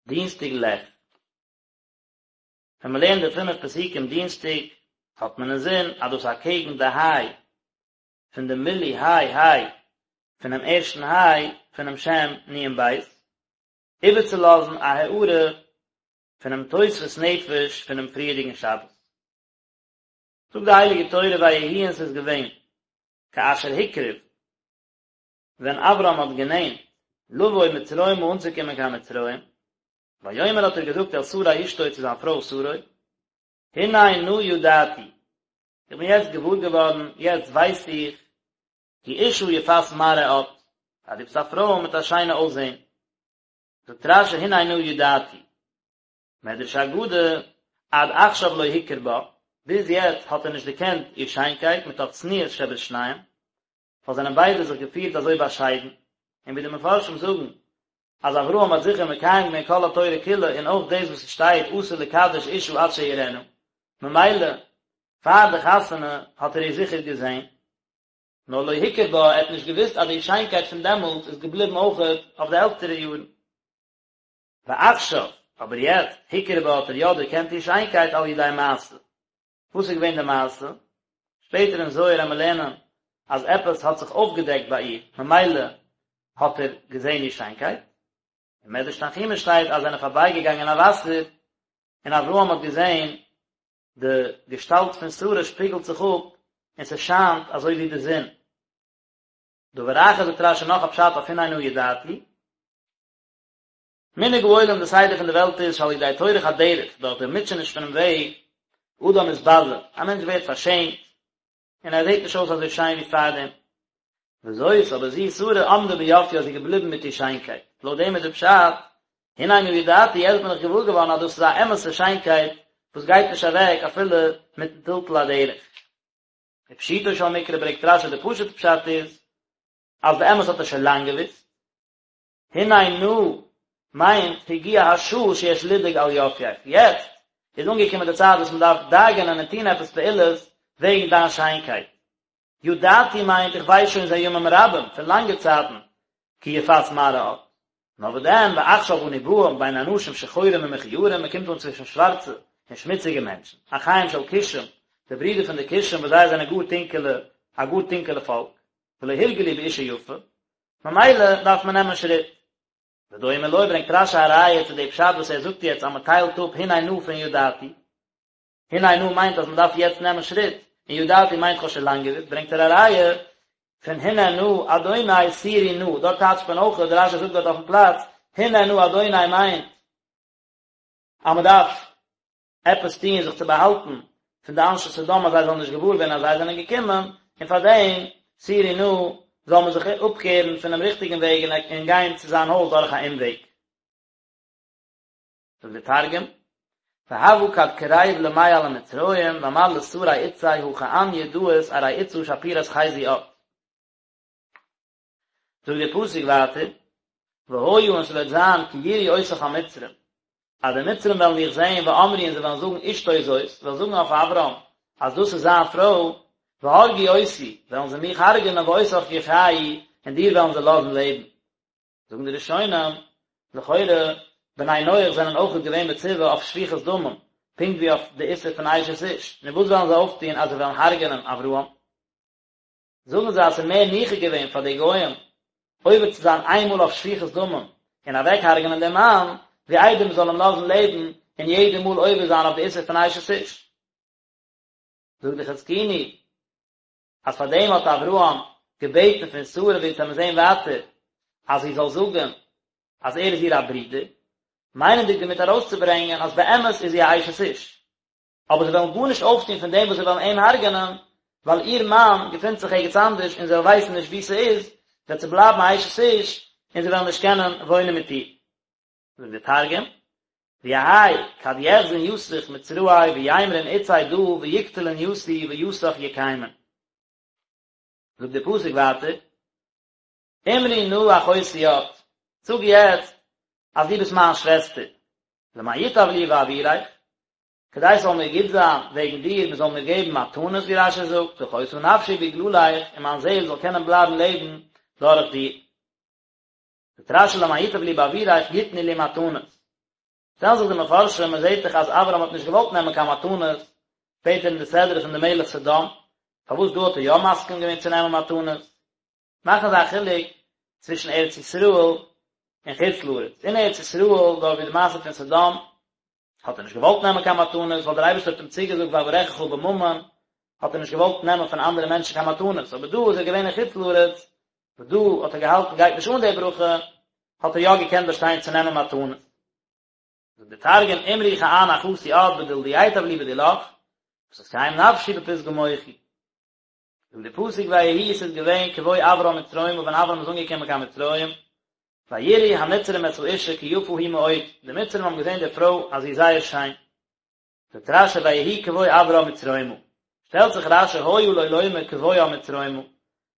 דינסטאג לך. ווען מען לערנט די פינף פסוקים דינסטאג האט מען אינזין אז דאס אקעגן די היי פון די מילוי היי היי פונעם ערשטן היי פונעם שם נון בית, איבערצולאזן א הארה פונעם תוספות נפש פונעם פריערדיגן שבת. זאגט די הייליגע תורה ויהי און ס'איז געווען כאשר הקריב ווען אברהם האט גענענט לבוא מצרימה אנצוקומען קיין מצרים, ויאמר האט ער געזאגט אל שרי אשתו צו זיין פרוי שרי, הנה נא ידעתי, איך בין יעצט געוואר געווארן, יעצט ווייס איך, כי אשה יפת מראה את, אז דו ביסט א פרוי מיט א שיינע אויסזען. זאגט רשי הנה נא ידעתי, מדרש אגדה, עד עכשיו לא הכיר בה, ביז יעצט האט ער נישט דערקענט איר שיינקייט מתוך צניעות שבשניהם, ווייל זענען ביידע זיך געפירט אזוי באשיידן, און ווי די מפרשים זאגן אז אברהם האט זיכער מקיים געווען כל התורה כולה און אויך דאס וואס עס שטייט אסור לקדש אשה עד שיראנה, ממילא פאר די חתונה האט ער איר זיכער געזען, נאר לא הכיר בה, ער האט נישט געוואוסט אז די שיינקייט פון דעמאלטס איז געבליבן אויכעט אויף די עלטערע יארן. ועכשיו, אבער יעצט, הכיר בה האט ער יא דערקענט איר שיינקייט על ידי מעשה. וואס איז געווען די מעשה? שפעטער אין זוהר עמיר לערנען אז עפעס האט זיך אויפגעדעקט ביי איר, ממילא האט ער געזען איר שיינקייט. אין מדרש תנחומא שטייט אז זיי זענען פארבייגעגאנגען א וואסער, און אברהם האט געזען די געשטאלט פון שרה שפיגלט זיך אפ און ס'שיינט אזוי ווי די זון. דבר אחר זאגט רשי נאך א פשט אויף הנה נא ידעתי. מנהג העולם די סדר פון די וועלט איז שעל ידי טורח הדרך, דורך די מוטשעניש פונעם וועג, אדם מתבזה, א מענטש ווערט פארשעמט, און ער זעט נישט אויס אזוי שיין ווי פארדעם. וזאת, אבער זי, שרה, עמדה ביופיה איז זי געבליבן מיט איר שיינקייט. לויט דעם איז די פשט, הנה נא ידעתי, יעצט בין איך געוואר געווארן אז דאס איז א אמת'ע שיינקייט וואס גייט נישט אוועק אפילו מיטן טלטול הדרך. ופשוטו של מקרא ברענגט רשי די פשוט'ע פשט איז, אז באמת האט ער שוין לאנג געוואוסט, הנה נא מיינט הגיע השעה שיש לדאוג על יופייך, יעצט איז אנגעקומען די צייט וואס מען דארף דאגה'נען און טון עפעס פעולות וועגן דיין שיינקייט. ידעתי מיינט איך ווייס שוין זה ימים רבים, פון לאנגע צייטן, כי יפת מראה את. נאר וואס דען, ועכשיו אנו באים בין אנשים שחורים ומכוערים, מען קומט אן צווישן שווארצע און שמוציגע מענטשן, אחיהם של כושים, די ברידער פון די כושים וואס זיי זענען גאר טונקעלע, א גאר טונקעלע פאלק, ולא הורגלו באשה יפה, ממילא דארף מען נעמען שריט. ודומה לו ברענגט רשי א ראיה צו די פשט וואס ער זאגט יעצט אז מען טיילט אפ הנה נא פון ידעתי. הנה נא מיינט אז מען דארף יעצט נעמען שריט, און ידעתי מיינט כ'האב שוין לאנג געוואוסט, ברענגט ער א ראיה פון הנה נא אדוני סורו נא, דארט טייטשט מען אויך, דער רשי זאגט דארט אויפן פלאץ, הנה נא אדוני מיינט אז מען דארף עפעס טוען זיך צו באהאלטן פון די אנשי סדום אז זיי זאלן נישט געוואר ווערן אז זיי זענען געקומען, און פאר דעם סורו נא זאל מען זיך אפקערן פונעם ריכטיגן וועג און גיין צו זיין הויז דורך א אומוועג. זאגט דער תרגום, והוה כד קריב למיעל למצרים ואמר לשרי אתתיה הכא אן ידעית ארי אתתא שפירת חיזו את. זאגט דער פסוק ווייטער, והיה און ס'וועט זיין כי יראו אותך המצרים, אז די מצרים וועלן דיך זען ואמרו און זיי וועלן זאגן אשתו זאת, וועלן זאגן אויף אברהם אז דאס איז זיין פרוי, והרגו אותי, וועלן זיי מיך הרג'ענען ואותך יחיו, און דיר וועלן זיי לאזן לעבן. זאגן די ראשונים, לכאורה, בני נח זענען אויכעט געווען מצווה אויף שפיכות דמים, פונקט ווי אויף די איסור פון אשת איש, נו וואס וועלן זיי אויפטון אז זיי וועלן הרג'ענען אברהם? זאגן זיי אז ס'איז מער ניחא געווען פאר די גוים עובר צו זיין איין מאל אויף שפיכות דמים און אוועק הרג'נען דעם מאן, ווי איידער מ'זאל אים לאזן לעבן און יעדע מאל עובר זיין אויף די איסור פון אשת איש. זאגט די חזקוני אז פאר דעם האט אברהם געבעטן פון שרה ווי אונז וועלן זען ווייטער אז זי זאל זאגן אז ער איז איר א ברודער, מיינענדיג דערמיט ארויסצוברענגען אז באמת איז זי א אשת איש. אבער זיי וועלן גארנישט אויפטון פון דעם וואס זיי וועלן אים הרג'ענען, ווייל איר מאן געפינט זיך ערגעץ אנדערש און זיי ווייסן נישט וואו ס'איז, וועט זי בלייבן א אשת איש און זיי וועלן נישט קענען וואוינען מיט איר. זאגט דער תרגום, ויהי כד יחזון יתיך מצראי ויימרון אתתיה דא ויקטלון יתי ויתך יקיימון. זאגט דער פסוק ווייטער, אמרי נא אחותי את, זאג יעצט אז דו ביסט מיין שוועסטער, למען ייטב לי בעבורך, כדי ס'זאל מיר גוט זיין וועגן דיר, מען זאל מיר געבן מתנות ווי רש"י זאגט, וחיתה נפשי בגללך, און מיין זעהל זאל קענען בלייבן לעבן דורך דיר. זאגט רש"י למען ייטב לי בעבורך יתנו לי מתנות. שטעלן זיך די מפרשים, מען זעט דאך אז אברהם האט נישט געוואלט נעמען קיין מתנות, שפעטער אין די סדרה פון די מלך סדום, פארוואס דא האט ער יא מסכים געווען צו נעמען מתנות? מאכן זיי א חילוק צווישן ארץ ישראל און חוץ לארץ, אין ארץ ישראל, דארט ווי די מעשה פון סדום, האט ער נישט געוואלט נעמען קיין מתנות, ווייל דער אייבערשטער האט אים צוגעזאגט ואברכך בממון, האט ער נישט געוואלט נעמען פון אנדערע מענטשן קיין מתנות, אבער דא איז ער געווען אין חוץ לארץ, וואס דא האט ער געהאלטן גייט נישט אן די ברכה, האט ער יא געקענט באשטיין צו נעמען מתנות. זאגט דער תרגום, אמרי כען אחתי את בדיל דיתיב לי בדילך, ותתקיים נפשי בפתגמיכי. זאגט די פסוק ויהי עס איז געווען כבוא אברם מצרימה ווען אברם איז אנגעקומען קיין מצרים, ויראו המצרים את האשה כי יפה היא מאוד, די מצרים האבן געזען די פרוי אז זי איז זייער שיין. זאגט רשי ויהי כבוא אברם מצרימה, שטעלט זיך רשי היה לו לומר כבואם מצרימה,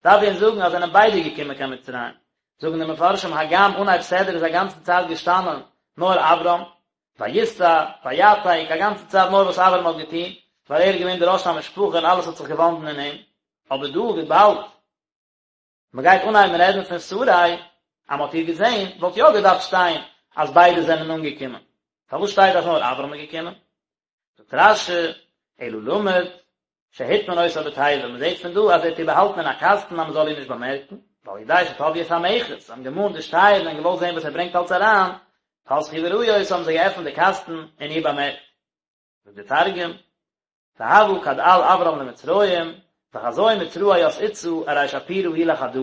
דארף ווען זאגן אז זענען ביידע געקומען קיין מצרים, זאגן די מפרשים הגם אנהייב סדרה איז א גאנצע צייט געשטאנען נאר אברם, ויסע, ויעתק, א גאנצע צייט נאר וואס אברהם האט געטון, ווייל ער איז געווען דער ראש המשפחה און אלעס האט זיך געוואנדן אין אים, אבער דא וויבאלד מען גייט אנהייבן רעדן פון שרי, אז מען האט איר געזען, וואלט יא געדארפט שטיין אז ביידע זענען אנגעקומען, פארוואס שטייט אז נאר אברהם איז געקומען? זאגט רשי, אלא למד, שהטמין אותה בתיבה, מען זעט פון דא אז ער האט איר באהאלטן אין א קאסטן אז מען זאל איר נישט באמערקן, ועל ידי שתבעו את המכס, זיי האבן געמאנט די שטייערן און געוואלט זען וואס ער ברענגט אלץ אריין, פתחו וראו אותה האבן זיי געעפנט די קאסטן און איר באמערקט. זאגט דער תרגום, והוה כד על אברם למצרים, וחזו מצראי ית אתתא ארי שפירא היא לחדא.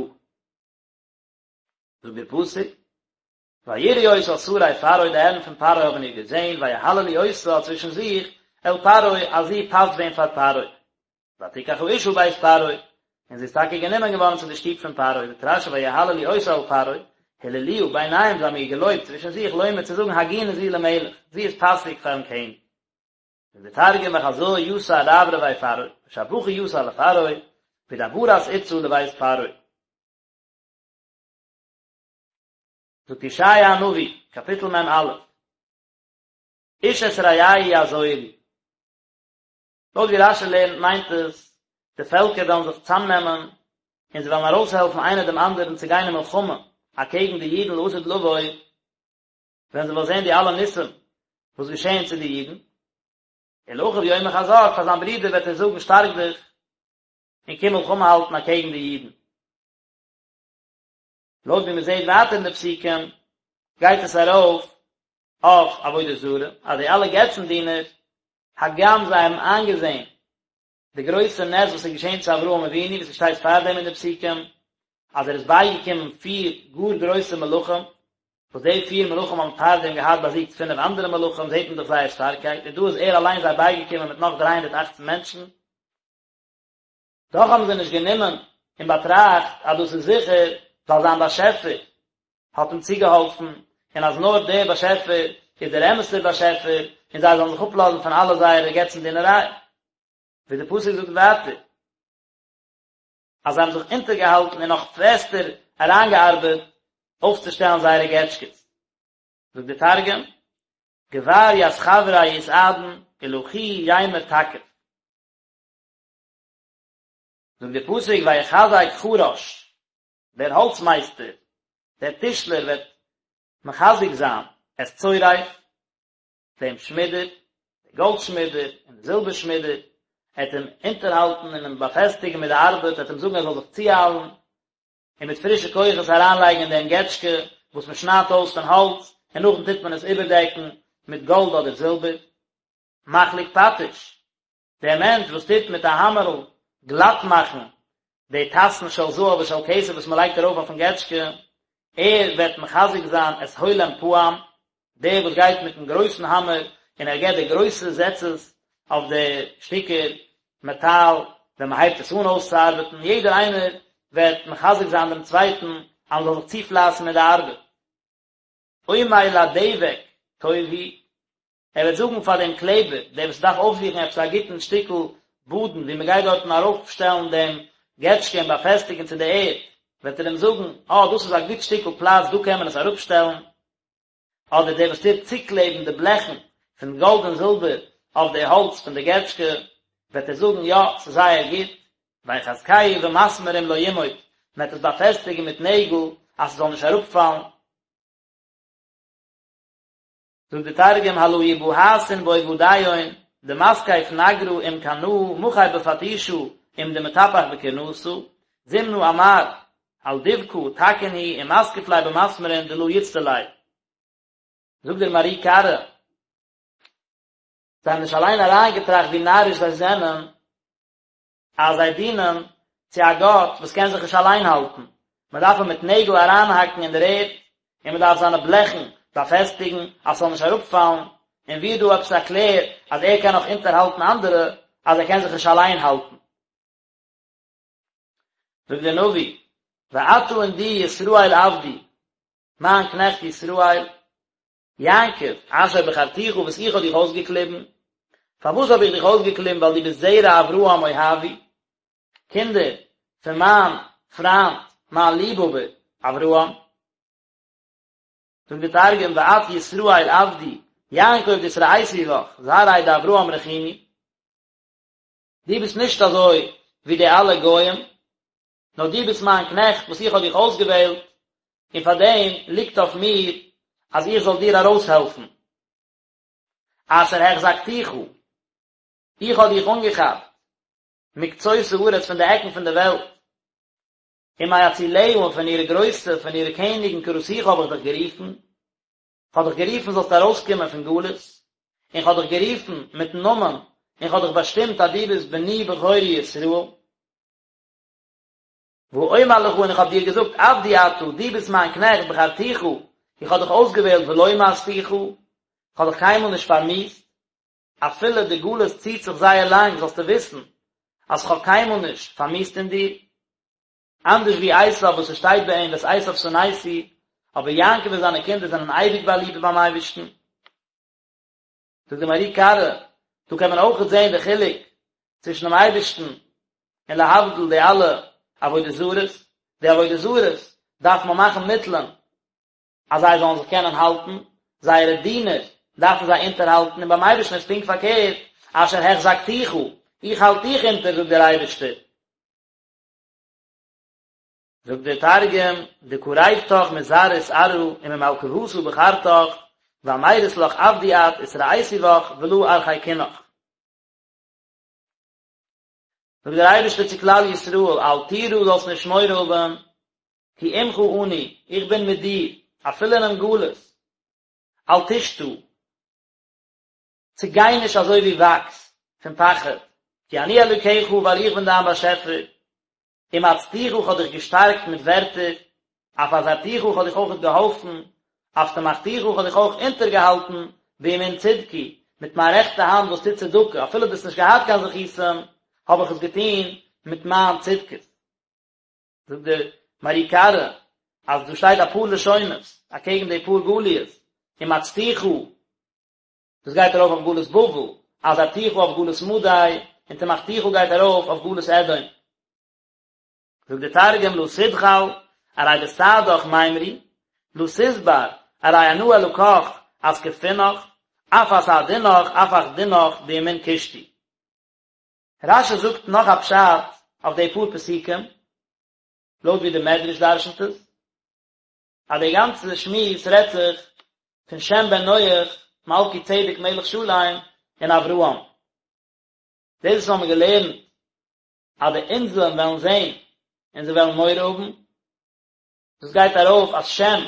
זאגט דער פסוק, ויראו אותה שרי פרעה די הערן פון פרעה האבן איר געזען ויהללו אותה צווישן זיך אל פרעה אז זי פאסט ווען פאר פרעה ותקח האשה בית פרעה און זי איז טאקע גענומען געווארן צו די שטוב פון פרעה זאגט רשי ויהללו אותה אל פרעה היללוה ביניהם זיי האבן איר געלויבט צווישן זיך לומר צו זאגן הגונה זו למלך זי איז פאסיג פארן קעניג זאגט דער תרגום וחזו יתר רברבי פרעה ושבחו יתר לפרעה ודברת אתתא לבית פרעה. זאגט ישעיה הנביא, קאפיטל מ א, איש את רעהו יעזורו. לויט ווי רשי לערנט מיינט עס, די פעלקער וועלן זיך צאמנעמען און זיי וועלן ארויסהעלפן איינער דעם אנדערן צו גיין אין מלחמה אקעגן די אידן לעתיד לבוא, ווען זיי וועלן זען די אלע ניסים וואס געשעען צו די אידן. ולאחיו יאמר חזק, פאר זיין ברודער וועט ער זאגן שטארק דיך און קום מלחמה האלטן אקעגן די אידן. לויט ווי מען זעט ווייטער אין די פסוקים גייט עס ארויף אויף עבודה זרה, אז די אלע געצן דינער, הגם זיי האבן איינגעזען די גרויסע נס וואס איז געשען צו אברהם אבינו, וואס עס שטייט פארדעם אין די פסוקים, אז ער איז בייגעקומען פיר גאר גרויסע מלכים, וואס די פיר מלכים האבן פארדעם געהאט באזיגט פינף אנדערע מלכים, זעט מען דאך זייער שטארקייט, און דא איז ער אליין זיי בייגעקומען מיט נאך דריי הונדערט אכצן מענטשן. דאך האבן זיי נישט גענומען אין באטראכט אז דאס איז זיכער ווייל זיין באשעפער האט אים צוגעהאלפן, און אז נאר דער באשעפער איז דער אמת'ער באשעפער, און זיי זאלן זיך אפלאזן פון אלע זייערע געצן דינעריי. ווי דער פסוק זאגט ווייטער, אז זיי האבן זיך אונטערגעהאלטן און נאך פעסטער אריינגעארבעט אויפצושטעלן זייערע געטשקעס. זאגט דער תרגום, גבר ית חבריה יסעדון ולאחוהי יימר תקיף. זאגט דער פסוק ויחזק חרש, דער האלץ מייסטער, דער טישלער וועט מחזק זיין את צורף, דעם שמידער, דער גאלד שמידער און דער זילבער שמידער, ער וועט אים אונטערהאלטן און אים באפעסטיגן מיט די ארבעט, ער וועט אים זאגן ער זאל זיך צואיילן און מיט פרישע כוחות אריינלייגן אין דעם געטשקע וואס מען שניידט אויס פון האלץ און נאכדעם טוט מען עס איבערדעקן מיט גאלד אדער זילבער. מחליק פטיש, דער מענטש וואס טוט מיט א האמערל גלאט מאכן די טאסן של זהב ושל כסף וואס מען לייגט ארויף אויפן געטשקע, ער וועט מחזק זיין את הולם פעם, דער וואס גייט מיטן גרויסן האמער און ער געבט די גרויסע זעצעס אויף די שטיקער מעטאל ווען מען הייבט עס אן אויסצוארבעטן, יעדער איינער וועט מחזק זיין דעם צווייטן אז מען זאל זיך צופלייסן מיט די ארבעט. אומר לדבק טוב הוא, ער וועט זאגן פאר דעם קלעבער, דער וואס דארף אויפזוכן עפעס א גוטן שטיקל באדן וואו מען גייט דארטן ארויפשטעלן דעם געטשקע און באפעסטיגן צו די ערד, וועט ער אים זאגן, אה, דאס איז א גוט שטיקל פלאץ, דא קען מען עס אראפשטעלן. אדער דער וואס טוט צוקלעבן די בלעכן פון גאלד און זילבער אויף די האלץ פון די געטשקע, וועט ער זאגן, יא, ס'איז זייער גוט. ויחזקהו במסמרים לא ימוט, מען וועט עס באפעסטיגן מיט נעגל אז ס'זאל נישט אראפפאלן. זאגט די תרגום הלא יבהתון בעובדיון דמתקיף נגרא עם קנא מחי בפטישא עם דמטפח בקורנתא, זמנא אמר על דבקא תקין הוא ומתקיף ליה במסמרין דלא יצטליה. זאגט דער מהר"י קרא, זיי האבן נישט אליין אריינגעטראכט ווי נאריש זיי זענען, אז זיי דינען צו א גאט וואס קען זיך נישט אליין האלטן, מען דארף אים מיט נעגל אריינהאקן אין דער ערד, און מען דארף זיינע בלעכן באפעסטיגן אז ס'זאל נישט אראפפאלן, און ווי איז דא עפעס א קלער אז ער קען נאך אונטערהאלטן אנדערע, אז ער קען זיך נישט אליין האלטן? זאגט דער נביא, ואתה און דו ישראל עבדי, מיין קנעכט ישראל, יעקב, אשר בחרתיך וואס איך האב דיך אויסגעקליבן. פארוואס האב איך דיך אויסגעקליבן? ווייל דו ביסט זרע אברהם אוהבי, קינדער פון מיין פריינט, מיין ליבהאבער אברהם. זאגט דער תרגום, ואת ישראל עבדי, יעקב דאתרעיתי בך, זרעיה דאברהם רחימי. דו ביסט נישט אזוי ווי די אלע גוים, נאר דו ביסט מיין קנעכט וואס איך האב דיך אויסגעוועלט, און פאר דעם ליגט אויף מיר אז איך זאל דיר ארויסהעלפן. אשר החזקתיך, איך האב דיך אנגעכאפט, מקצות הארץ פון די עקן פון די וועלט, ומאציליה און פון אירע גרויסע, פון אירע קעניגן קראתיך האב איך דיך גערופן, כ'האב דיך גערופן זאלסט ארויסקומען פון גלות, און כ'האב דיך גערופן מיטן נאמען, און כ'האב דיך באשטימט אז דו ביסט בני בכורי ישראל. ואומר לך און איך האב דיר געזאגט עבדי אתה, דו ביסט מיין קנעכט בחרתיך, איך האב דיך אויסגעוועלט ולא מאסתיך, איך האב דיך קיינמאל נישט פארמיאוסט, אפילו די גלות ציט זיך זייער לאנג זאלסטו וויסן אז איך האב קיינמאל נישט פארמיאוסט אין דיר, אנדערש ווי עשיו וואס עס שטייט ביי אים ואת עשיו שנאתי, אבער יעקב און זיינע קינדער זענען אייביג באליבט ביים אייבערשטן. זאגט די מהר"י קרא, דא קען מען אויכעט זען די חילוק צווישן דעם אייבערשטן און להבדיל די אלע עבודה זרות, די עבודה זרות דארף מען מאכן מיטלען אז זיי זאלן זיך קענען האלטן, זייערע דינער דארפן זיי אונטערהאלטן, און ביים אייבערשטן איז פונקט פארקערט, אשר החזקתיך, איך האלט דיך אונטער זאגט דער אייבערשטער. זאגט דער תרגום, דקריבתיך מזרעית ארעא וממלכוותא בחרתך, ואמירת לך עבדי את אתרעיתי בך ולא ארחיקינך. זאגט דער אייבערשטער צו כלל ישראל, אל תירא זאלסט נישט מורא האבן, כי עמך אני, איך בין מיט דיר, אפילו אינעם גלות, אל תשתא, צעגיי נישט אזוי ווי וואקס פון פחד, כי אני אלוקיך ווייל איך בין דיין באשעפער, אמצתיך איך האב דיך געשטארקט מיט ווערטער, אף עזרתיך איך האב דיך אויך געהאלפן, אף תמכתיך איך האב דיך אויך אונטערגעהאלטן, בימין צדקי, מיט מיין רעכטע האנט וואס טוט צדקה, אפילו דו האסט נישט געהאט קיין זכותים, האב איך עס געטון מיט מיין צדקות. זאגט דער מהר"י קרא, אז דא שטייט אפאר לשונות אקעגן די פאר גליות, אמצתיך, דאס גייט ארויף אויף גלות בבל, עזרתיך אויף גלות מדי, און תמכתיך גייט ארויף אויף גלות אדום. זאגט דער תרגום לא תדחל, ארי בסעדך מימרי, לא תשבר, ארי אנא אלקך אתקפינך, אף אסעדינך אף אחדינך בימין קשתי. רש"י זאגט נאך א פשט אויף די פאר פסוקים, לויט ווי די מדרש דרשנ'ט עס, אז די גאנצע שמועס רעדט זיך פון שם בן נח, מלכי צדק מלך שלם, און אברהם. דאס וואס האבן געלערנט אז די אינזלען וועלן זען און זיי וועלן מורא האבן, דאס גייט ארויף אז שם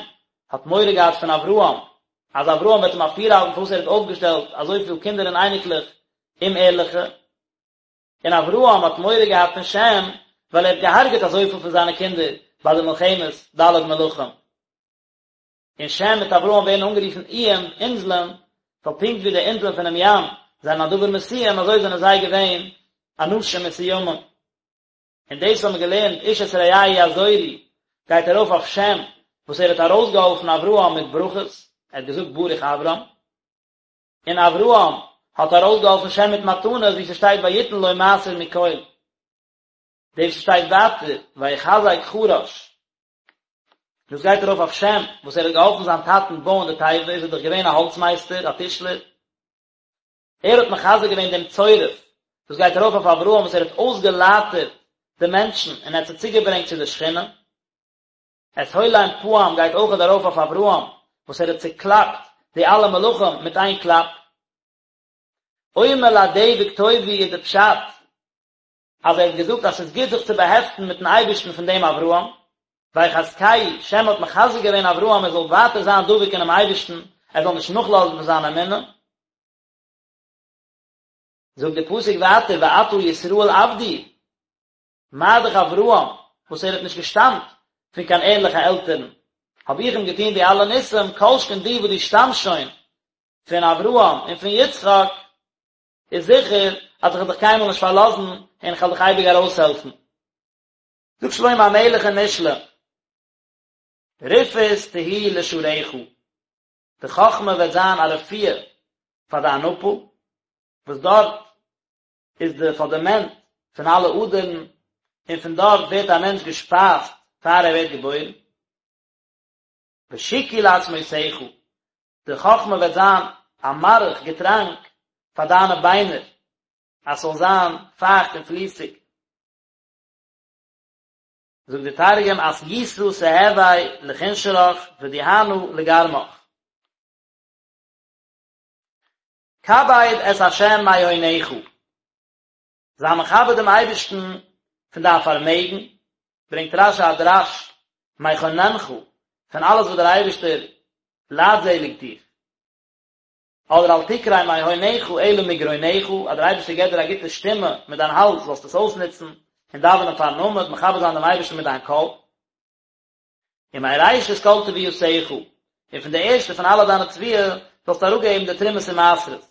האט מורא געהאט פון אברהם, אז אברהם וועט אים אפירהאלטן פארוואס ער האט אויפגעשטעלט אזויפיל קינדער און אייניקלעך אומערליכע. און אברהם האט מורא געהאט פון שם, ווייל ער האט געהארגעט אזויפיל פון זיינע קינדער ביי די מלחמת ד' מלכים. און שם מיט אברהם ווערן אנגערופן איים, אינזלען, ווייל פונקט ווי די אינזלען פונעם ים זענען א דבר מסוים, אזוי זענען זיי געווען אנשים מסוימים. און דאס האבן מיר געלערנט, איש את רעהו יעזורו, גייט ארויף אויף שם, וואס ער האט ארויסגעהאלפן אברהם מיט ברכות, ער האט געזאגט ברוך אברם. און אברהם האט ארויסגעהאלפן שם מיט מתנות ווי ס'שטייט ויתן לו מעשר מכל. דאס שטייט ווייטער ויחזק חרש. דאס גייט ארויף אויף שם וואס ער האט געהאלפן זיין טאטן בויען די תיבה, איז ער דאך געווען א האלצמייסטער, א טישלער. ער האט מחזק געווען דעם צורף, דאס גייט ארויף אויף אברהם וואס ער האט אויסגעלייטערט די מענטשן און ער האט זיי צוגעברענגט צו די שכינה. את הולם פעם גייט אויכעט ארויף אויף אברהם וואס ער האט צוקלאפט די אלע מלכים מיט איין קלאפ. אומר לדבק טוב הוא איז די פשט אז ער האט געזאגט אז ס'איז גוט זיך צו באהעפטן מיטן אייבערשטן פון דעם אברהם, ויחזקהו, שם האט מחזק געווען אברהם ער זאל ווייטער זיין דבוק אינעם אייבערשטן, ער זאל נישט נאכלאזן פון זיין אמונה. זאגט דער פסוק ווייטער ועתה ישראל עבדי, מה דאך אברהם וואס ער האט נישט געשטאמט פון קיין ערליכע עלטערן, האב איך אים געטון די אלע ניסים, כל שכן דו וואס דו שטאמסט שוין פון אברהם און פון יצחק, איז זיכער אז איך וועל דיך קיינמאל נישט פארלאזן און איך וועל דיך אייביג ארויסהעלפן. זאגט שלמה המלך אין משלי, רפאות תהי לשרך, די חכמה וועט זיין א רפואה פאר דיין נאפל, וואס דארט איז די פונדאמענט פון אלע אדערן, און פון דארט ווערט א מענטש געשפייזט פאר ער ווערט געבוירן. ושיקוי לעצמותיך, די חכמה וועט זיין א מרח געטראנק פאר דיינע ביינער, אז ס'זאל זיין פייכט און פליסיג. זאגט דער תרגום אסיותא תהוי לכנשראך ודהנא לגרמך. כבד את ה' מהונך, זיי מכבד דעם אייבערשטן פון דיין פארמעגן, ברענגט רש"י א דרש, מחוננך, פון אלעס וואס דער אייבערשטער לייטזעליגט דיך, אדער אל תקרי מהונך אלא מגרונך, אז דער אייבערשטער געבט דיר א גוטע שטימע מיט דיין האלז זאלסטו עס אויסנוצן און דאווענען פארן עמוד, מכבד זיין דעם אייבערשטן מיט דיין קול. ומראשית כל תבואתך, און פון די ערשטע פון אלע דיינע תבואה זאלסטו אראפגעבן די תרומות און מעשרות.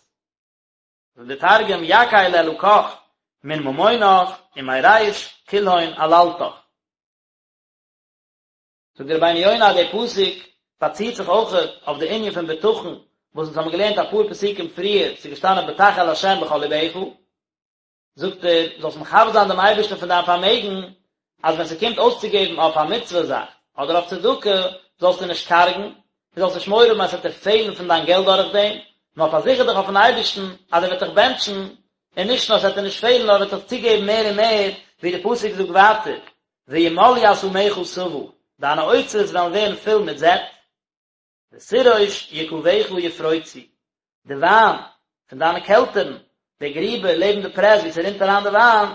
זאגט דער תרגום, יקהל לאלקך מן ממונך, ומריש כלהון עללתך. זאגט דער רבינו יונה אז דער פסוק באציט זיך אויכעט אויף די ענין פון בטחון וואס אונז האבן געלערנט אפאר פסוקים פריער, ס'איז געשטאנען בטח אל ה' בכל לבך, זאגט ער, זאלסט מכבד זיין דעם אייבערשטן פון דיין פארמעגן, אז ווען ס'קומט אויסצוגעבן אויף א מצוה זאך, אדער אויף צדקה, זאלסטו נישט קארגן, און זאלסט נישט מורא האבן אז ס'וועט דיר פעלן פון דיין געלט דורך דעם, נאר פארזיכער דיך אויפן אייבערשטן אז ער וועט דיך בענטשן, און נישט נאר ס'וועט דיר נישט פעלן, נאר ער וועט דיך צוגעבן מער און מער, ווי דער פסוק זאגט ווייטער, וימלאו אסמיך שבע, דיינע אוצרות וועלן ווערן פול מיט זעט. ותירוש יקביך יפרוצו, די וויין פון דיינע קעלטערן, די גריבער לעבן די פרעס וואו ס'רינט אריין די וויין,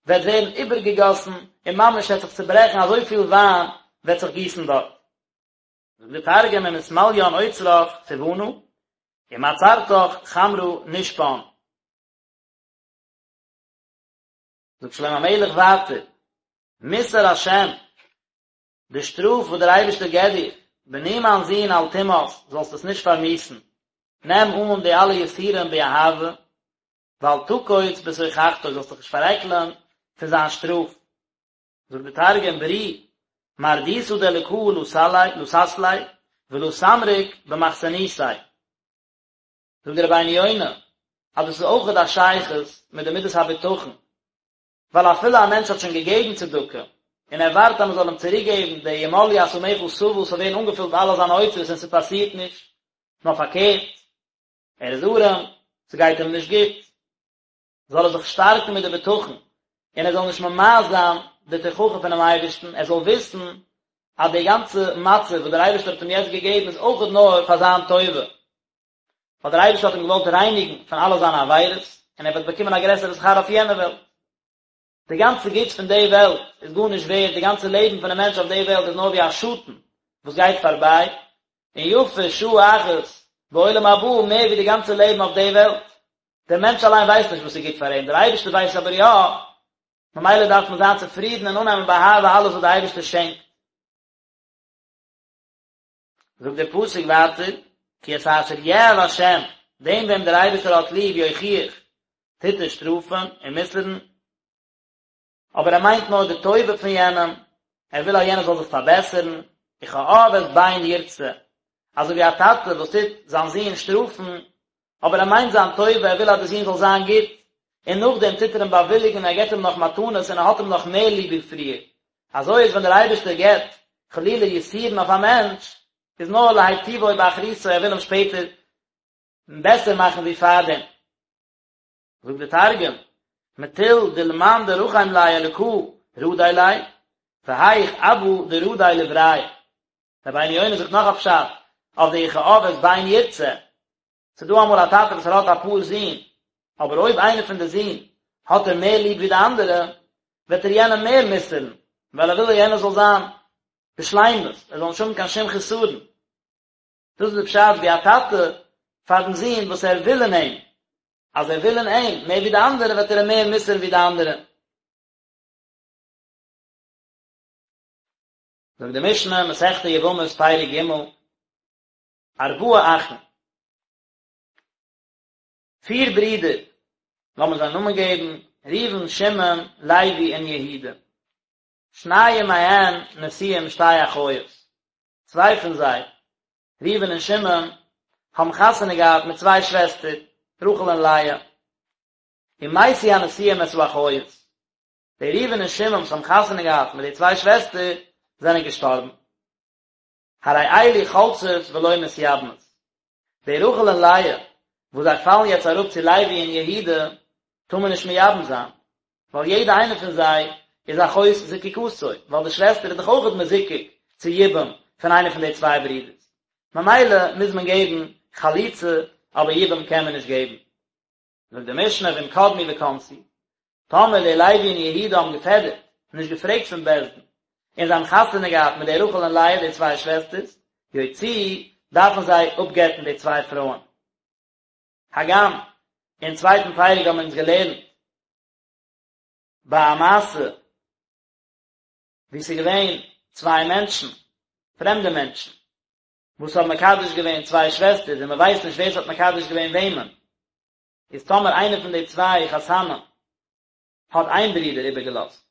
וועט ווערן איבערגעגאסן און ממש וועט זיך צעברעכן אזויפיל וויין וועט זיך גיסן דארט. זאגט די תרגום ומתמליין אוצרך סבנא, ומעצרתך חמרא נשפן. זאגט שלמה המלך ווייטער, מוסר השם, די שטראף וואס דער אייבערשטער געבט דיר, בני מיין זון אל תמאס, זאלסט עס נישט פארמיאוסן, נעם אן די אלע יסורים באהבה, ואל תקוץ בתוכחתו, זאלסט דיך נישט פארעקלען פון זיין שטראף. זאגט די תרגום, ברי, מרדותא דאלקא לא תסלי, ולא תמריק במכסנותיה. זאגט דער רבינו יונה, אז דאס איז אויכעט א שייכות מיט די מידת הבטחון, ווייל אפילו א מענטש האט שוין געגעבן צדקה, און ער ווארט אז מען זאל אים צוריק געבן די ימלאו אסמיך שבע ס'זאל ווערן אנגעפילט אלע זיינע אוצרות און ס'פאסירט נישט, נאר פארקערט, ער איז ארעם, ס'גייט אים נישט גוט, זאל ער זיך שטארקן מיט די בטחון, און ער זאל נישט ממאס זיין די תוכחה פונעם אייבערשטן, ער זאל וויסן אז די גאנצע מצב וואס דער אייבערשטער האט אים יעצט געגעבן איז אויכעט נאר פאר זיין טובה, ווייל דער אייבערשטער האט אים געוואלט רייניגן פון אלע זיינע עבירות, און ער וועט באקומען א גרעסערע שכר אויף יענע וועלט. די גאנצע גוטס פון די וועלט איז גארנישט ווערד, די גאנצע לעבן פונעם מענטש אויף די וועלט איז נאר ווי א שאטן וואס גייט פארביי, און יפה שעה אחת בעולם הבא מער ווי די גאנצע לעבן אויף די וועלט. דער מענטש אליין ווייסט נישט וואס איז גוט פאר אים, דער אייבערשטער ווייסט אבער יא, ממילא דארף מען זיין צופרידן און אננעמען באהבה אלעס וואס דער אייבערשטער שענקט. זאגט דער פסוק ווייטער, כי את אשר יאהב השם, דעם וועם דער אייבערשטער האט ליב יוכיח, טוט ער שטראפן און מוסר'ן, אבער ער מיינט נאר די טובה פון יענעם, ער וויל אז יענער זאל זיך פארבעסערן, וכאב את בן ירצה, אזוי ווי א טאטע וואס טוט זיין זון שטראפן, אבער ער מיינט זיין טובה, ער וויל אז די זון זאל זיין גוט, און נאכדעם טוט ער אים באוויליגן, ער געבט אים נאך מתנות און ער האט אים נאך מער ליב ווי פריער. אזוי איז ווען דער אייבערשטער געבט חלילה יסורים אויף א מענטש, איז נאר להיטיבו באחריתו, ער וויל אים שפעטער בעסער מאכן ווי פארדעם. זאגט דער תרגום, מטול דלמאן דרחים ליה אלקא רדי ליה, והיך אבא דרדי לבריה. רבינו יונה זאגט נאך א פשט אויף די וכאב את בן ירצה. ס'איז דא אמאל א טאטע וואס ער האט אפאר זין, אבער אויב איינער פון די זין האט ער מער ליב ווי די אנדערע, וועט ער יענעם מער מוסר'ן, ווייל ער וויל יענער זאל זיין בשלימות, ער זאל נישט האבן קיין שום חסרון. דאס איז די פשט ווי א טאטע פאר'ן זון וואס ער וויל אין אים, אז ער וויל אין אים מער ווי די אנדערע וועט ער אים מער מוסר'ן ווי די אנדערע. זאגט די משנה, מסכת יבמות פרק ג', ארבעה אחים, פיר ברידער, לאמיר זיי נאמען געבן, ראובן, שמעון, לוי און יהודה. שניים מהן נשואים שתי אחיות, צוויי פון זיי, ראובן און שמעון, האבן חתונה געהאט מיט צוויי שוועסטער, רחל און לאה. ומתו הנשואים את האחיות, די ראובן און שמעון וואס האבן חתונה געהאט מיט די צוויי שוועסטער זענען געשטארבן. הרי אלו חולצות ולא מתייבמות. די רחל און לאה וואס זיי פאלן יעצט אראפ צו לוי און יהודה טאר מען נישט מייבם זיין, ווייל יעדע איינע פון זיי איז אחות זקוקתו, ווייל די שוועסטער איז דאך אויכעט מזוקק צו יבום פון איינע פון די צוויי ברידערס, ממילא מוז מען געבן חליצה אבער יבום קען מען נישט געבן. זאגט די משנה ואם קדמו וכנסו, טאמער די לוי און יהודה האבן געפעדערט, נישט געפרעגט פון בית דין, און זיי האבן חתונה געהאט מיט די רחל און לאה די צוויי שוועסטערס, יוציאו, דארפן זיי אפגט'ן די צוויי פרויען. הגם, אין צווייטן פרק האבן אונז געלערנט ביי א מעשה ווי ס'איז געווען צוויי מענטשן, פרעמדע מענטשן, וואס האבן מקדש געווען צוויי שוועסטערס און מען ווייסט נישט ווער ס'האט מקדש געווען וועמען, איז טאמער איינער פון די צוויי חתנים האט איין ברודער איבערגעלאזט,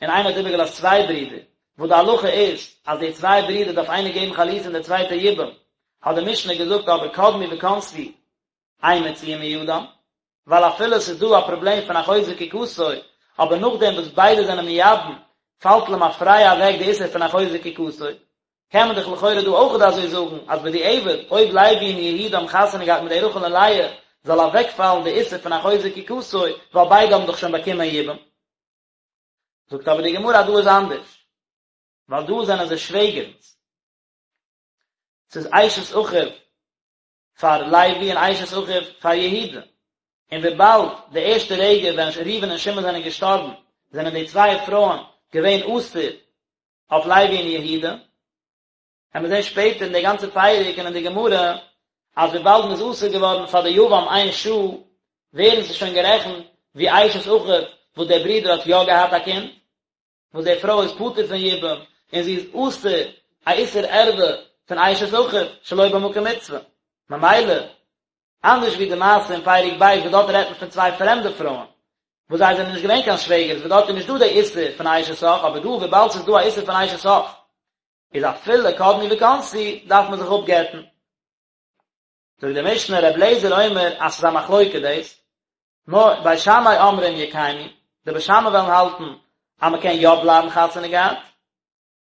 און איינער האט איבערגעלאזט צוויי ברידער, וואס די הלכה איז אז די צוויי ברידער דארף איינער געבן חליצה און דער צווייטער יבום, האט די משנה געזאגט אבער קדמו וכנסו אין מוציאין מידם, ווייל אפילו עס איז דא א פראבלעם פון אחות זקוקתו, אבער נאכדעם וואס ביידע זענען מייבם, פאלט למפרע אוועק די איסור פון אחות זקוקתו. קען מען דאך לכאורה דא אויכעט אזוי זאגן, אז בדיעבד, אויב לוי און יהודה האבן חתונה געהאט מיט די רחל און לאה, זאל אוועקפאלן די איסור פון אחות זקוקתו, ווייל ביידע האבן דאך שוין באקומען יבום. זאגט אבער די גמרא אז דא איז אנדערש, ווייל דא זענען זיי שוועגערנס. ס'איז אשת אחיו פאר לוי און אשת אחיו פאר יהודה, און וויבאלד די ערשטע רגע ווען ראובן און שמעון זענען געשטארבן זענען די צוויי פרויען געווען אסור אויף לוי און יהודה, וועלן מיר זען שפעטער אין די גאנצע פרק און אין די גמרא אז וויבאלד מען איז אסור געווארן פאר די יבם איין שעה, ווערן זיי שוין גערעכנט ווי אשת אחיו וואס דער ברודער האט יא געהאט א קינד. וואס די פרוי איז פטור פון יבום און זי איז אסור א איסור ערווה פון אשת אחיו שלא במקום מצוה, ממילא אנדערש ווי די מעשה אין פרק ב' וואס דארט רעדט מען פון צוויי פרעמדע פרויען וואס זיי זענען נישט געווען קיין שוועגערס וואס דארט איז נישט דא די איסור פון אשת אח אבער דא וויבאלד ס'איז דא א איסור פון אשת אח איז אפילו קדמו וכנסו דארף מען זיך אפגט'ן. זאגט די משנה ר' אליעזר אומר אז ס'איז א מחלוקה דאס, נאר בית שמאי אומרים יקיימו, די בית שמאי וועלן האלטן אז מען קען יא בלייבן חתונה געהאט,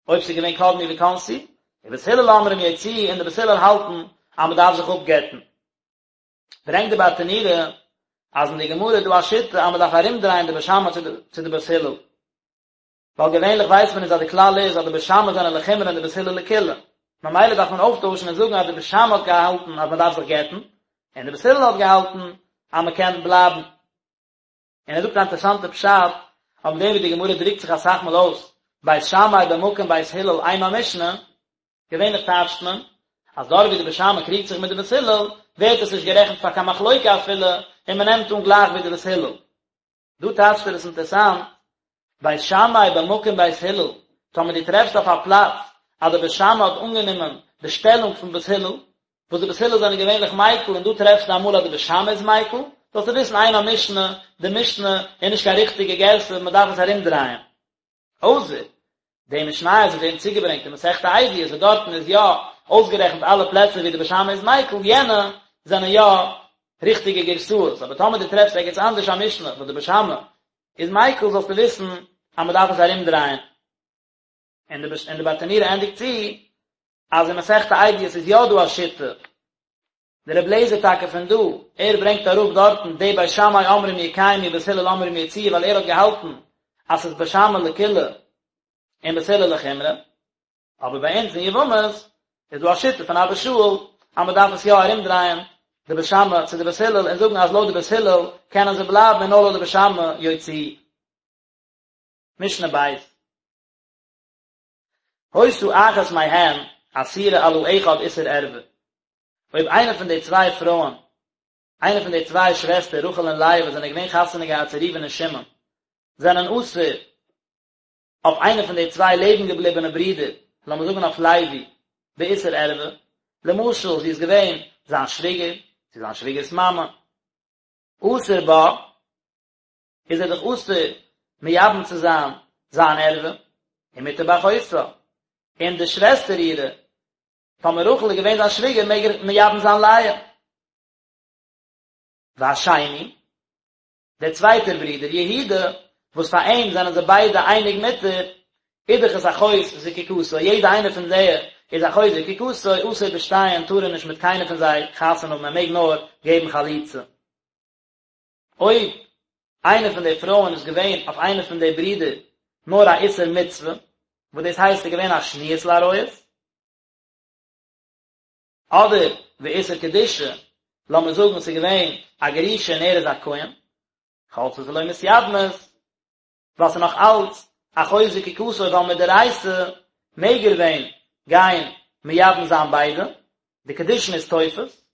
אויב ס'איז געווען קדמו וכנסו, ובית הלל אומרים יוציאו און די בית הלל האלטן אז מען דארף זיך אפגט'ן. ברענגט די ברטנורא אז אין די גמרא איז דא א שיטה אז מען דארף ארומדרייען די בית שמאי צו די בית הלל. ווייל געווענליך ווייסט מען איז אז די כלל איז אז די בית שמאי זענען לחומרא און די בית הלל לקולא, ממילא דארף מען אויפטוישן און זאגן אז די בית שמאי האט געהאלטן אז מען דארף זיך גט'ן, און די בית הלל האט געהאלטן אז מען קען בלייבן. און ער זאגט א אינטערעסאנטע פשט אויף דעם ווי די גמרא דרוקט זיך אסאך מאל אויס בית שמאי במקום בית הלל אינה משנה, געווענליך טייטשט מען אז דארט ווי די בית שמאי קריגט זיך מיט די בית הלל ווערט עס נישט גערעכנט פאר קיין מחלוקה אפילו, און מען נעמט אן גלייך ווי די בית הלל. דא טייטשט ער עס אינטערסאנט, בית שמאי במקום בית הלל, טאמער דו טרעפסט אויף א פלאץ אז די בית שמאי האט אנגענומען די שטעלונג פון בית הלל, וואס די בית הלל זענען געווענליך מיקל און דא טרעפסטו אמאל אז די בית שמאי איז מיקל, זאלסטו וויסן אינה משנה, די משנה איז נישט קיין ריכטיגע גירסא, מען דארף עס ארומדרייען. אויסער די משניות וואס ווערן צוגעברענגט אין מסכת עדיות וואס דארטן איז יא אויסגערעכנט אלע פלעצער ווי די בית שמאי איז מיקל, יענע זענען יא ריכטיגע גירסאות, אבער טאמער דו טרעפסט ערגעץ אנדערש א משנה וואס די בית שמאי איז מיקל זאלסטו וויסן אז מען דארף עס ארומדרייען. און די ברטנורא ענדיגט צו אז אין מסכת עדיות איז יא דא א שיטה דער רבי אליעזר טאקע פון דא, ער ברענגט אראפ דארטן די בית שמאי אומרים יקיימו בית הלל אומרים יוציאו ווייל ער האט געהאלטן אז ס'איז בית שמאי לקולא און בית הלל לחומרא, אבער ביי אונז אין יבמות איז דא א שיטה פון אבא שאול אז מען דארף עס יא ארומדרייען. די בית שמאי צו די בית הלל און זאגן אז לויט די בית הלל קענען זיי בלייבן און נאר לויט די בית שמאי יוציאו. משנה ב'. היתה אחת מהן אסורה על האחד איסור ערווה, אויב איינע פון די צוויי פרויען, איינע פון די צוויי שוועסטער רחל און לאה וואס זענען געווען חתונה געהאט צו ראובן און שמעון, זענען אסור אויף איינע פון די צוויי לעבן געבליבענע ברידער, לאמיר זאגן אויף לוי, באיסור ערווה, למשל זי איז געווען זיין שוויגער, צו זיין שוויגער'ס מאמע, אסור בה, איז ער דאך אסור מייבם צו זיין זיין ערווה, ומותר באחותה, און די שוועסטער אירע, טאמער רחל איז געווען זיין שוויגער מעג ער מייבם זיין לאה. והשני, דער צווייטער ברודער יהודה, וואס פאר אים זענען זיי ביידע אייניג מותר, איז דאך עס אחות זקוקתו, יעדע איינע פון זיי איז אחות זקוקתו, אסור בשתיהן טאר ער נישט מיט קיינער פון זיי חתונה האבן, ער מעג נאר געבן חליצה. אויב איינע פון די פרויען איז געווען אויף איינע פון די ברידער נאר א איסור מצוה, וואס דאס הייסט ס'איז געווען א שניות לעריות, אדער ואיסור קדושה, לאמיר זאגן ס'איז געווען א גרושה און ער איז א כהן, חולצות ולא מתייבמות, ווייל ס'איז נאך אלץ אחות זקוקתו ווייל מדאורייתא מעג ער ווען גיין מייבם זיין ביידע, די קידושין איז תופס.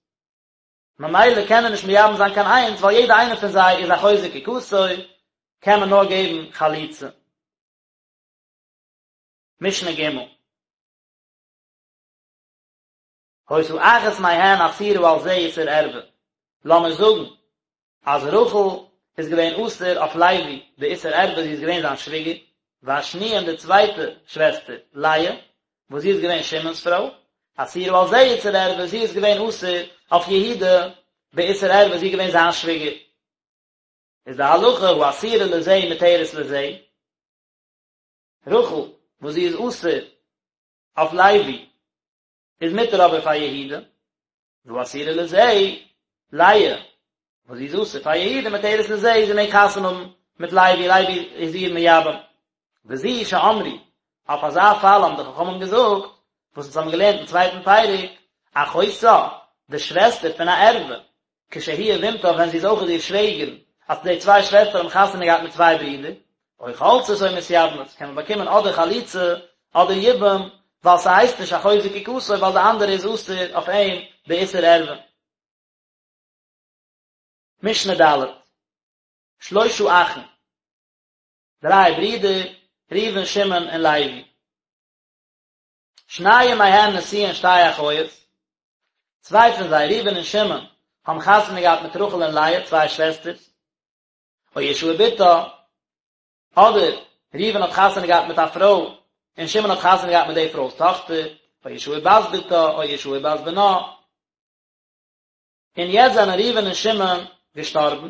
ממילא קען ער נישט מייבם זיין קיין איינס ווייל יעדע איינע פון זיי איז אחות זקוקתו, קען מען נאר געבן חליצה. משנה ג' היתה אחת מהן אסורה על זה איסור ערווה, לאמיר זאגן אז רחל איז געווען אסור אויף לוי באיסור ערווה זי איז געווען זיין שוויגער, והשניה און די צווייטע שוועסטער לאה וואס זי איז געווען שמעון'ס פרוי, אסורה על זה איסור ערווה זי איז געווען אסור אויף יהודה באיסור ערווה זי איז געווען זיין שוויגער. איז די הלכה האסורה לזה מותרת לזה, רחל וואס זי איז אסור אויף לוי איז מותר אבער פאר יהודה, והאסורה לזה, לאה, וואס זי איז אסור פאר יהודה מותרת לזה, זי מעג חתונה האבן מיט לוי, לוי איז איר מייבם. וזו שאמרו, אויף אזא פאל האבן די חכמים געזאגט, וואס אונז האבן געלערנט אין צווייטן פרק, אחותה, די שוועסטער פון א ערווה, כשהיא יבמתה ווען זי איז אויך איר שוועגערין, אז די צוויי שוועסטער האבן חתונה געהאט מיט צוויי ברידער, או חולצות או מתייבמות, קען מען באקומען אדער חליצה אדער יבום, ווייל ס'הייסט נישט אחות זקוקתו ווייל די אנדערע איז אסור אויף אים באיסור ערווה. משנה ד', שלשה אחים, דריי ברידער, ראובן שמעון און לוי. שניים מהן נשואין שתי אחיות, צוויי פון זיי, ראובן און שמעון, האבן חתונה געהאט מיט רחל און לאה, צוויי שוועסטערס, או אשה ובתה, אדער ראובן האט חתונה געהאט מיט א פרוי, און שמעון האט חתונה געהאט מיט די פרוי'ס טאכטער, או אשה ובת בתה, או אשה ובת בנה. און יעצט זענען ראובן און שמעון געשטארבן,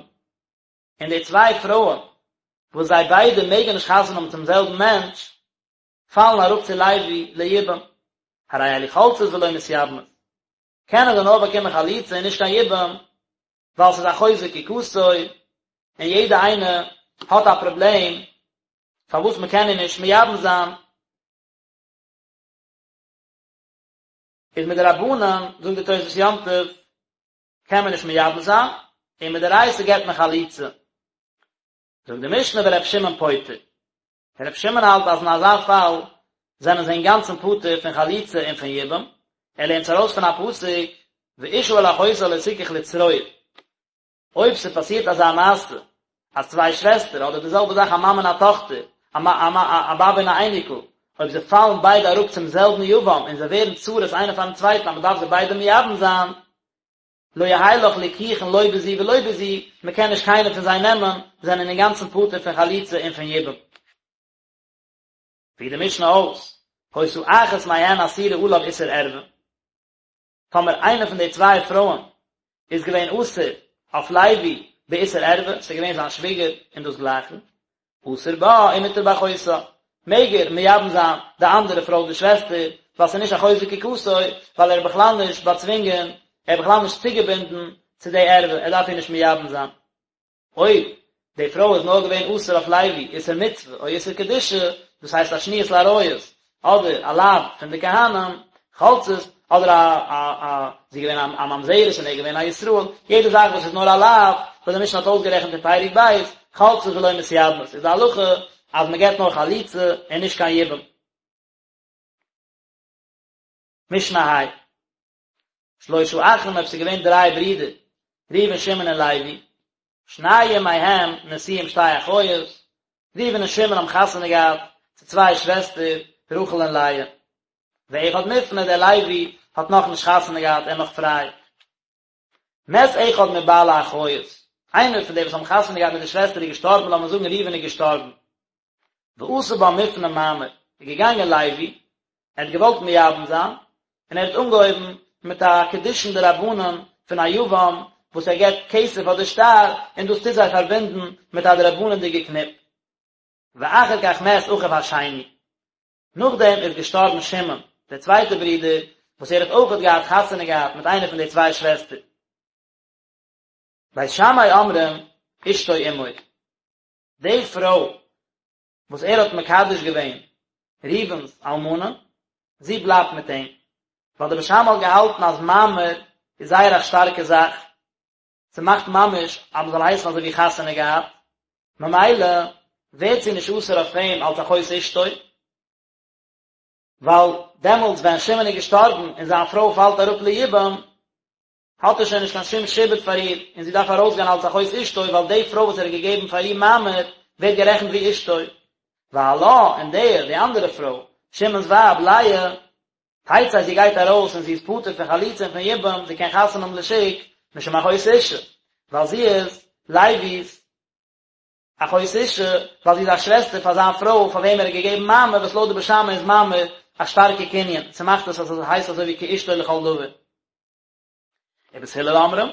און די צוויי פרויען, וואס זיי ביידע מעגן נישט חתונה האבן צום זעלבן מענטש, פאלן אראפ צו לוי ליבום, הרי אלו חולצות ולא מתייבמות, קענען זיי נאר באקומען חליצה און נישט קיין יבום, ווייל ס'איז אחות זקוקתו, און יעדע איינע האט א פראבלעם פארוואס מ'קען איר נישט מייבם זיין, איז מדרבנן, זאגט די תוספות יום טוב, קען מען נישט מייבם זיין, און מדאורייתא געבט מען חליצה. זאגט די משנה ור' שמעון פוטר. ר' שמעון האלט אז אין אזא פאל זענען זיי אינגאנצן פטור פון חליצה און פון יבום, ער לערנט עס ארויס פון א פסוק ואשה אל אחותה לא תקח לצרור, אויב ס'פאסירט אזא מעשה אז צוויי שוועסטער אדער די זעלבע זאך א מאמע און א טאכטער, א באבע און א אייניקל, אויב זיי פאלן ביידע אראפ צום זעלבן יבם און זיי ווערן צרות איינער פארן צווייטן אז מ'דארף זיי ביידע מייבם זיין, לא יהא לך ליקוחין לא בזו ולא בזו, מען קען נישט קיינער פון זיי נעמען, זענען אינגאנצן פטור פון חליצה און פון יבום. פירט די משנה אויס, היתה אחת מהן אסורה עליו איסור ערווה, טאמער איינע פון די צוויי פרויען איז געווען אסור אויף לוי באיסור ערווה, ס'איז געווען זיין שוויגער און דאס גלייכן, אסור בה ומותר באחותה, מעג ער מייבם זיין די אנדערע פרוי די שוועסטער, ווייל ס'איז נישט אחות זקוקתו, ווייל ער איז בכלל נישט באצווינגען, ער איז בכלל נישט צוגעבינדן צו די ערווה, ער דארף איר נישט מייבם זיין. אויב די פרוי איז נאר געווען אסור אויף לוי איסור מצוה או איסור קדושה, דאס הייסט א שניות לעריות, אדער א לאו פון די כהנים, חולצות. אדער א א א זי איז געווען א ממזרת און ער איז געווען א ישראל, יעדע זאך וואס איז נאר א לאו, וואס די משנה האט אויסגערעכנט אין פרק ב', חולצות ולא מתייבמות, איז די הלכה אז מען געבט נאר חליצה און נישט קיין יבום. משנה ה'. שלשה אחים אויב ס'איז געווען דריי ברידער, ראובן שמעון און לוי, שניים מהם נשואים שתי אחיות, ראובן און שמעון האבן חתונה געהאט צו צוויי שוועסטער, רחל און לאה. ואחד מופנה, דער לוי האט נאכנישט חתונה געהאט, ער איז נאך פריי. מת אחד מבעלי אחיות, איינער פון די וואס האבן חתונה געהאט מיט די שוועסטער איז געשטארבן, לאמיר זאגן ראובן איז געשטארבן. ועשה בה מופנה מאמר, איז געגאנגען לוי, ער האט געוואלט מייבם זיין, און ער האט אנגעהויבן מיט א קידושין דרבנן פון א יבם וואס ער געבט כסף אדער שטר, און דאס טוט זיי פארבינדן מיט א דרבנן'דיגע קניפ. ואחר כך מת אחיו השני, נאכדעם איז געשטארבן שמעון, דער צווייטער ברודער, וואס ער האט אויכעט געהאט חתונה געהאט מיט איינע פון די צוויי שוועסטער. בית שמאי אומרים אשתו עמו. די פרוי וואס ער האט מקדש געווען ראובן'ס אלמנה, זי בלייבט מיט אים, ווייל די בית שמאי האט געהאלטן אז מאמר איז זייער א שטארקע זאך, ס'מאכט ממש אז מ'זאל הייסן אזוי ווי חתונה געהאט, ממילא ווערט זי נישט אסור אויף אים אלס אחות אשתו, ווייל דעמאלטס ווען שמעון איז געשטארבן און זיין פרוי פאלט אראפ ליבום, האט ער שוין נישט קיין שום שעבוד פאר איר, און זי דארף ארויסגיין אלס אחות אשתו, ווייל די פרוי וואס ער האט געגעבן פאר איר מאמר, ווערט גערעכנט ווי אשתו. והלה, און די, די אנדערע פרוי, שמעון'ס ווייב, לאה, תצא זי גייט ארויס און זי איז פטור פון חליצה און פון יבום, זי קען חתונה האבן לשוק, משום אחות אשה, ווייל זי איז לוי'ס אחות אשה, ווייל זי איז א שוועסטער פאר זיין פרוי פאר וועם ער האט געגעבן מאמר, וואס לויט די בית שמאי איז מאמר א שטארקע קנין, ס'מאכט עס אז עס הייסט אזוי ווי כאשתו לכל דבר. ובית הלל אומרים,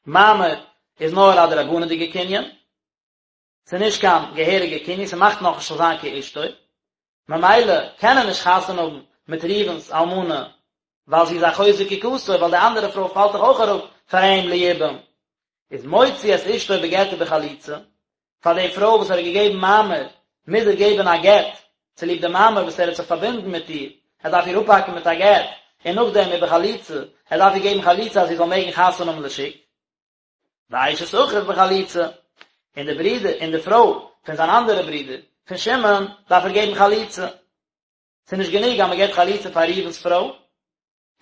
מאמר איז נאר א דרבנן'דיגע קנין, ס'איז נישט קיין געהעריגע קנין, ס'מאכט נאכנישט זאל זיין כאשתו, ממילא קען ער נישט חתונה האבן מיט ראובן'ס אלמנה, ווייל זי איז אחות זקוקתו, ווייל די אנדערע פרוי פאלט דאך אויך אראפ פאר אים ליבום, איז מוציא את אשתו בגט ובחליצה, פאר די פרוי וואס ער האט געגעבן מאמר, מוז ער געבן א גט, צוליב די מאמר וואס ער האט זיך פארבינדן מיט איר, ער דארף איר אפהאקן מיט א גט, און נאכדעם ובחליצה, ער דארף איר געבן חליצה אז זי זאל מעגן חתונה האבן לשוק. ואשת אחיו בחליצה, און די ברודער, און די פרוי פון זיין אנדערע ברודער, פון שמעון, דארף ער געבן חליצה. ס'איז נישט גענוג אז מען געבט חליצה פאר ראובן'ס פרוי,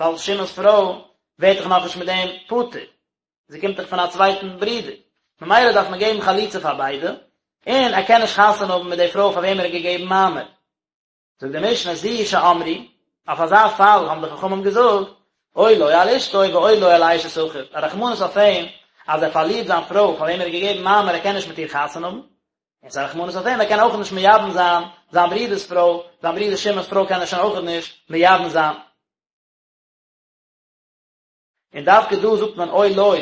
ווייל שמעון'ס פרוי ווערט דאך נאכנישט מיט דעם פטור, זי קומט דאך פון א צווייטן ברודער, ממילא דארף מען געבן חליצה פאר ביידע, און ער קען נישט חתונה האבן מיט די פרוי פאר וועם ער האט געגעבן מאמר. זאגט די משנה זו היא שאמרו, אויף אזא פאל האבן די חכמים געזאגט, אוי לו על אשתו ואוי לו על אשת אחיו, א רחמנות אויף אים אז ער פארלירט זיין פרוי פאר וועם ער האט געגעבן מאמר ער קען נישט מיט איר חתונה האבן, און ס'איז א רחמנות אויף אים ער קען אויך נישט מייבם זיין זיין ברודער'ס פרוי, זיין ברודער שמעון'ס פרוי קען ער שוין אויך נישט מייבם זיין. און דווקא דא זאגט מען אוי לו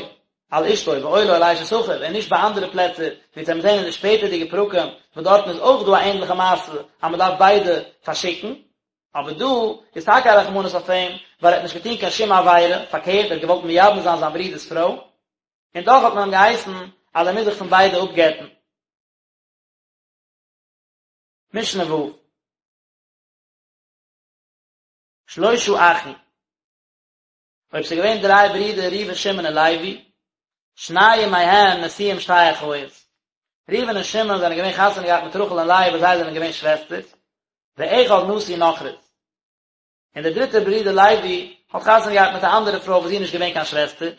על אשתו ואוי לו על אשת אחיו, און נישט ביי אנדערע פלעצער, ווי אונז וועלן זען אין די שפעטערדיגע פרקים, וואס דארטן איז אויך דא א ענדליכע מעשה אז מען דארף ביידע פארשיקן, אבער דא איז טאקע א רחמנות אויף אים, ווייל ער האט נישט געטון קיין שום עבירה, פארקערט ער האט געוואלט מייבם זיין זיין ברודער'ס פרוי, און דאך האט מען אים געהייסן אז ער מוז זיך פון ביידע אפגט'ן. משנה ו'. שלשה אחים. אויב ס'איז געווען דריי ברידער ראובן שמעון און לוי, שניים מהם נשואים שתי אחיות. ראובן און שמעון זענען געווען חתונה געהאט מיט רחל און לאה וואס זיי זענען געווען שוועסטערס, ואחד נשוי נכרית. און דער דריטער ברודער לוי האט חתונה געהאט מיט א אנדערע פרוי וואס זי איז נישט געווען קיין שוועסטער.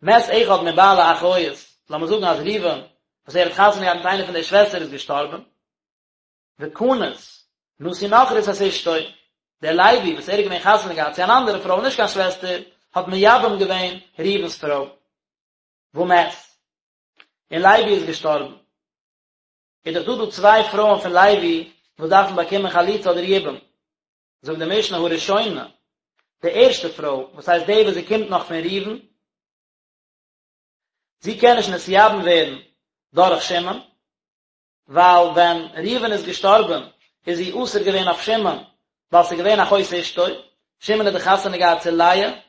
מת אחד מבעלי אחיות, לאמיר זאגן אז ראובן וואס ער האט חתונה געהאט מיט איינע פון די שוועסטער איז געשטארבען. וכנס, נשוי נכרית את אשתו, דער לוי וואס ער איז געווען חתונה געהאט צו אן אנדערע פרוי נישט קיין שוועסטער, האט מייבם געווען ראובן'ס פרוי. ומת. און לוי איז געשטארבן. איז דאך דא דא צוויי פרויען פון לוי וואס דארפן באקומען חליצה אדער יבום. זאגט די משנה הראשונה, די ערשטע פרוי, וואס הייסט די וואס זי קומט נאך פון ראובן, זי קען נישט נתייבם ווערן דורך שמעון, ווייל ווען ראובן איז געשטארבען איז זי אסור געווען אויף שמעון, ווייל ס'איז געווען אחות אשתו, שמעון האט דאך חתונה געהאט צו לאה,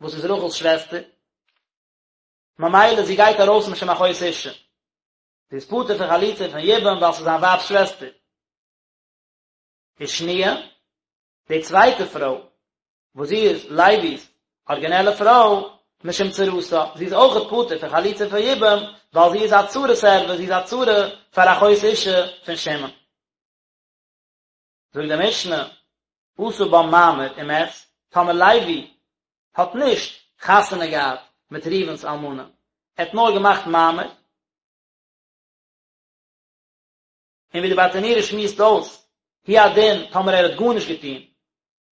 וואס איז רחל'ס שוועסטער, ממילא זי גייט ארויס משום אחות אשה. זי איז פטור פון חליצה און פון יבום ווייל ס'איז זיין ווייב'ס שוועסטער. ושניה, די צווייטע פרוי, וואס זי איז לוי'ס ארגינעלע פרוי, משום צרתה, זי איז אויכעט פטור פון חליצה און פון יבום, ווייל זי איז א צרת ערוה, זי איז א צרה פאר אחות אשה פון שמעון. זאגט די משנה, עשה בה מאמר ומת, טאמער לוי האט נישט חתונה געהאט מיט ראובן'ס אלמנה, ער האט נאר געמאכט מאמר, און ווי די ברטנורא שמועסט אויס, הוא הדין טאמער ער האט גארנישט געטון,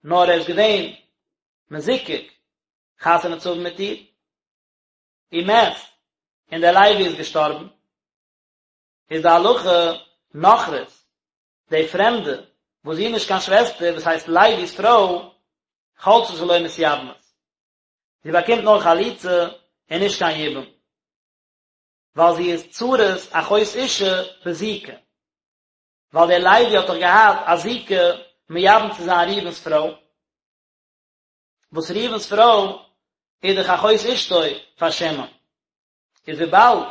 נאר ער איז געווען מזוקק חתונה צו האבן מיט איר, ומת, און דער לוי איז געשטארבן, איז די הלכה נכרית, די פרעמדע, וואס זי איז נישט קיין שוועסטער, וואס הייסט לוי'ס פרוי, חולצות ולא מתייבמות. זי באקומט נאר חליצה און נישט קיין יבום. ווייל זי איז צרת אחות אשה בזיקה. ווייל דער לוי האט דאך געהאט א זיקה מייבם צו זיין ראובן'ס פרוי, וואס ראובן'ס פרוי איז דאך אחות אשתו פאר שמעון. איז וויבאלד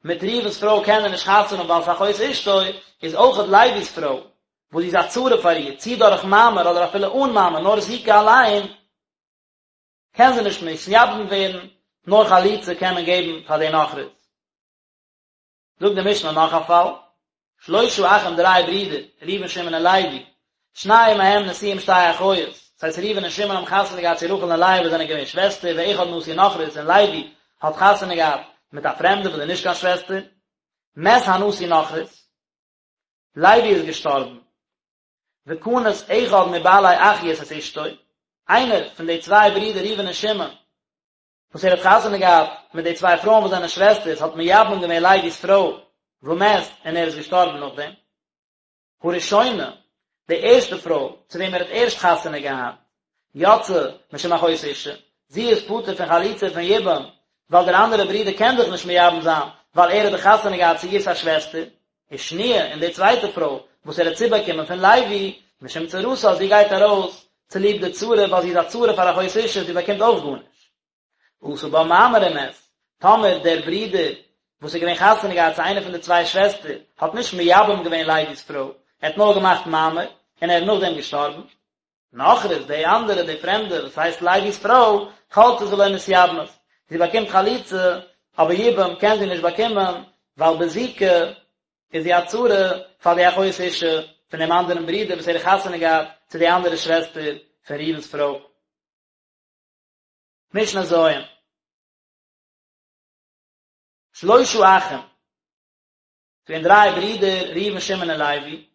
מיט ראובן'ס פרוי קען ער נישט חתונה האבן ווייל ס'איז אחות אשתו, איז אויכעט לוי'ס פרוי, וואס זי איז א צרה פאר איר, צי דורך מאמר אדער אפילו אן מאמר, נאר זיקה אליין, קען זי נישט מתייבם ווערן, נאר חליצה קען מען געבן פאר די נכרית. זאגט די משנה נאך א פאל, שלושה אחים דריי ברידער, ראובן שמעון און לוי, שניים מהם נשואים שתי אחיות, דאס הייסט ראובן און שמעון האבן חתונה געהאט צו רחל און לאה וואס זענען געווען שוועסטער, ואחד נשוי נכרית און לוי האט חתונה געהאט מיט א פרעמדע וואס איז נישט קיין שוועסטער, מת הנשוי נכרית, לוי איז געשטארבן, וכנס אחד מבעלי אחיות את אשתו, איינער פון די צוויי ברידער ראובן און שמעון, וואס ער האט חתונה געהאט מיט די צוויי פרויען וואס זענען שוועסטערס, האט מייבם געווען לוי'ס פרוי, ומת, און ער איז געשטארבן נאכדעם. הראשונה, די ערשטע פרוי, צו וועם ער האט ערשט חתונה געהאט, יוצאה משום אחות אשה, זי איז פטור פון חליצה און פון יבום, ווייל דער אנדערער ברודער קען דאך נישט מייבם זיין, ווייל ער האט דאך חתונה געהאט צו איר'ס א שוועסטער. ושניה, און די צווייטע פרוי, וואס ער האט צובאקומען פון לוי, משום צרתה, זי גייט ארויס צוליב די צרה, ווייל זי איז א צרה פאר אחות אשה, זי באקומט אויך גארנישט. עשה בה מאמר ומת, טאמער דער ברודער וואס איז געווען חתונה געהאט צו איינע פון די צוויי שוועסטער האט נישט מייבם געווען לוי'ס פרוי, ער האט נאר געמאכט מאמר, און ער איז נאכדעם געשטארבן. נכרית, די אנדערע, די פרעמדע, וואס הייסט לוי'ס פרוי, חולצות ולא מתייבמות, זי באקומט חליצה, אבער יבום קען זי נישט באקומען, ווייל בזיקה איז זי א צרה פאר די אחות אשה פון דעם אנדערן ברודער וואס ער האט חתונה געהאט צו די אנדערע שוועסטער פון ראובן'ס פרוי. משנה ז'. שלושה אחים. ס'געווען דריי ברידער, ראובן שמעון און לוי,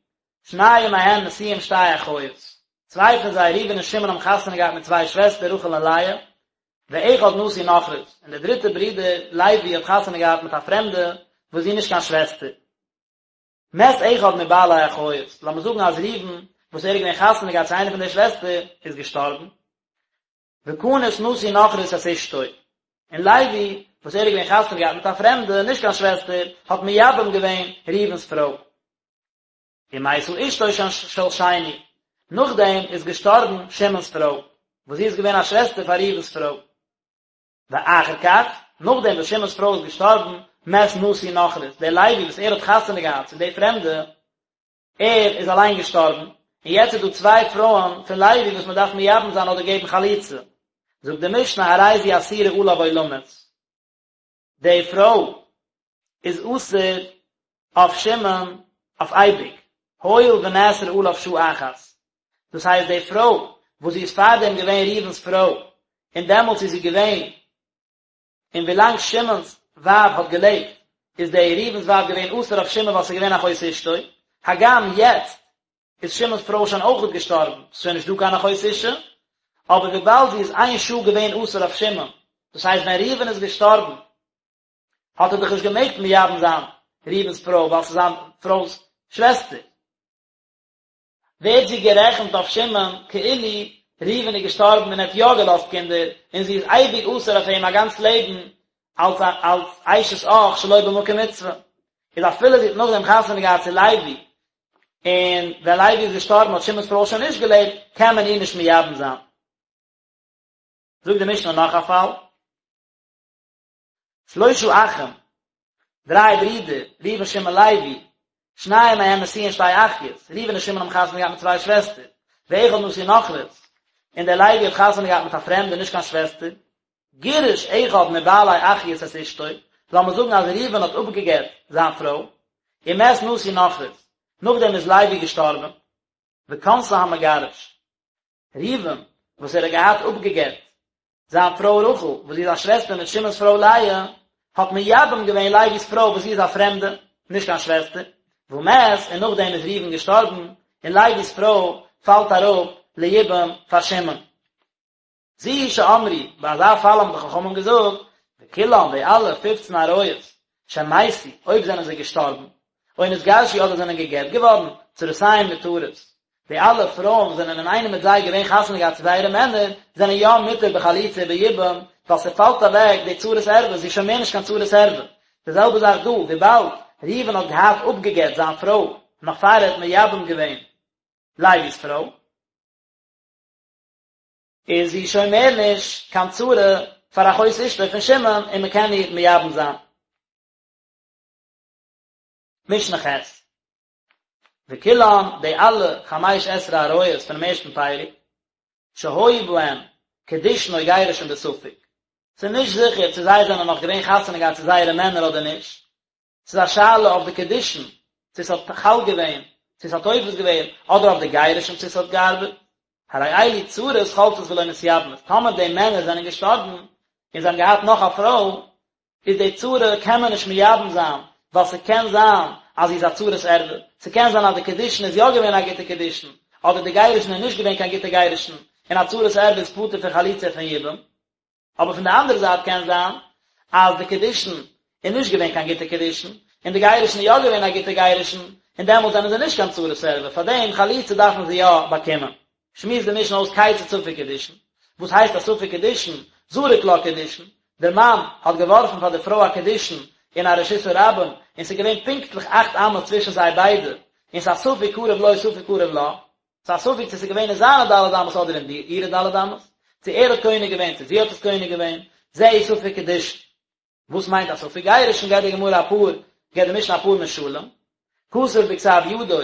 שניים מהם נשואים שתי אחיות, צוויי פון זיי, ראובן און שמעון האבן חתונה געהאט מיט צוויי שוועסטער רחל און לאה, ואחד נשוי נכרית, און דער דריטער ברודער, לוי, האט חתונה געהאט מיט א פרעמדע, וואס זי איז נישט קיין שוועסטער. מת אחד מבעלי אחיות, לאמיר זאגן אז ראובן, וואס ער איז געווען חתונה געהאט צו איינע פון די שוועסטער, איז געשטארבן, וכנס נשוי נכרית את אשתו, און לוי, וואס ער איז געווען חתונה געהאט מיט א פרעמדע, נישט קיין שוועסטער, האט מייבם געווען ראובן'ס פרוי. ומתה אשתו של שני, נאכדעם איז געשטארבן שמעון'ס פרוי, וואס זי איז געווען א שוועסטער פאר ראובן'ס פרוי. ואחר כך, נאכדעם וואס שמעון'ס פרוי איז געשטארבן, מת נשוי נכרית, דער לוי וואס ער האט חתונה געהאט צו די פרעמדע, ער איז אליין געשטארבן, און יעצט איז דא צוויי פרויען פון לוי וואס מען דארף מייבם זיין אדער געבן חליצה. זאגט די משנה הרי זו אסורה עליו עולמית. די פרוי איז אסור אויף שמעון אויף אייביג, הואיל ונאסרה עליו שעה אחת. דאס הייסט די פרוי וואס זי איז פארדעם געווען ראובן'ס פרוי, און דעמאלטס איז זי געווען און ווילאנג שמעון'ס ווייב האט געלעבט איז די ראובן'ס ווייב געווען אסור אויף שמעון ווייל ס'איז געווען אחות אשתו, הגם יעצט איז שמעון'ס פרוי שוין אויכעט געשטארבן, ס'איז שוין נישט דא קיין אחות אשה, אבער וויבאלד זי איז איין שעה געווען אסור אויף שמעון, דאס הייסט ווען ראובן איז געשטארבן האט ער דאך נישט געמעגט מייבם זיין ראובן'ס פרוי ווייל ס'איז זיין פרוי'ס שוועסטער. ווערט זי גערעכנט אויף שמעון כאילו ראובן איז געשטארבן און ער האט יא געלאזט קינדער, און זי איז אייביג אסור אויף אים א גאנץ לעבן אלס א אלס אשת אח שלא במקום מצוה, איז אפילו זי האט נאכדעם חתונה געהאט צו לוי, און ווען לוי איז געשטארבן האט שמעון'ס פרוי שוין נישט געלעבט, קען מען איר נישט מייבם זיין. זאגט די משנה נאך א פאל. שלושה אחים, דריי ברידער, ראובן שמעון לוי, שניים מהם נשואין שתי אחיות, ראובן און שמעון האבן חתונה געהאט מיט צוויי שוועסטער, ואחד נשוי נכרית, און דער לוי האט חתונה געהאט מיט א פרעמדע נישט קיין שוועסטער, גירש אחד מבעלי אחיות את אשתו, לאמיר זאגן אז ראובן האט אפגע'גט זיין פרוי, ומת נשוי נכרית, נאכדעם איז לוי געשטארבען, וכנסה המגרש, ראובן וואס ער האט געהאט אפגע'גט זיין פרוי רחל וואס זי איז א שוועסטער מיט שמעון'ס פרוי לאה, האט מייבם געווען לוי'ס פרוי וואס זי איז א פרעמדע, נישט קיין שוועסטער, ומת, און נאכדעם איז ראובן געשטארבן, און לוי'ס פרוי פאלט אראפ ליבום פאר שמעון. זו היא שאמרו, ביי אזא פאל האבן די חכמים געזאגט, וכולן, די אלע פופצן עריות, שמתו, אויב זענען זיי געשטארבן, או נתגרשו אדער זענען גע'גט געווארן, צרותיהן מותרות. די אלע פרויען וואס זענען אינאיינעם מיט זיי געווען חתונה געהאט צו זייערע מענער, זענען יא מותר בחליצה וביבום, ווייל ס'פאלט אוועק די צרת ערווה, זי איז שוין מער נישט קיין צרת ערווה. די זעלבע זאך דא, וויבאלד ראובן האט געהאט אפגע'גט זיין פרוי נאך פאר ער האט מייבם געווען לוי'ס פרוי, איז זי שוין מער נישט קיין צרה פאר אחות אשתו פון שמעון און מ'קען איר מייבם זיין. משנה ח'. וכולן, די אלע חמש עשרה עריות פונעם ערשטן פרק, שהיו בהם קידושין או גירושין בספק, ס'איז נישט זיכער צו זיי זענען נאך געווען חתונה געהאט צו זייערע מענער אדער נישט, ס'איז א שאלה אויף די קידושין, צו ס'האט חל געווען, צו ס'האט תופס געווען, אדער אויף די גירושין צו ס'האט געארבעט. הרי אלו צרות חולצות ולא מתייבמות, טאמער די מענער זענען געשטארבן און זיי האבן געהאט נאך א פרוי, איז די צרה קען מען נישט מייבם זיין, ווייל ס'קען זיין אז זי איז א צרת ערווה, ס'קען זיין אז די קידושין איז יא געווען א גוטע קידושין, אדער די גירושין איז נישט געווען קיין גוטע גירושין, און א צרת ערווה איז פטור פון חליצה און פון יבום. אבער פון די אנדערע זייט קען זיין אז די קידושין איז נישט געווען קיין גוטע קידושין, און די גירושין איז יא געווען א גוטע גירושין, און דעמאלט זענען זיי נישט קיין צרת ערווה, פארדעם חליצה דארפן זיי יא באקומען. שמועסט די משנה אויס כיצד ספק קידושין, וואס הייסט א ספק קידושין, זרק לה קידושין, דער מאן האט געווארפן פאר די פרוי א קידושין אין א רשות הרבים, און ס'איז געווען פונקטליך אכט אמות צווישן זיי ביידע, און ס'איז א ספק קרוב לו ספק קרוב לה, ס'איז א ספק צו ס'איז געווען אין זיינע ד' אמות אדער אין אירע ד' אמות, צו ער האט קונה געווען צו זי האט עס קונה געווען, זהו ספק קידושין. וואס מיינט א ספק גירושין געבט די גמרא אפאר, געבט די משנה אפאר משלים, כתב בכתב ידו,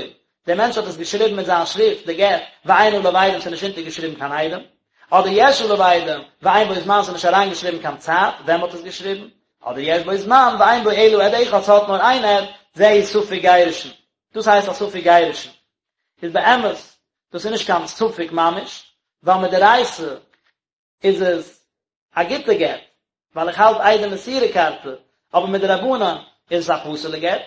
דער מענטש האט עס געשריבן מיט זיין שריפט, די גט, ואין עליו עדים ס'איז נישט אונטערגעשריבן קיין עדים, אדער יש עליו עדים, ואין בו זמן ס'איז נישט אריינגעשריבן קיין צייט ווען מ'האט עס געשריבן, אדער יש בו זמן ואין בו אלא עד אחד ס'האט נאר איין עד, זהו ספק גירושין. דאס הייסט א ספק גירושין. איז באמת, דאס איז נישט קיין ספק ממש, ווייל מדאורייתא איז עס א גוטע גט, ווייל איך האלט עדי מסירה כרתי, אבער מדרבנן איז עס א פסול'ע גט.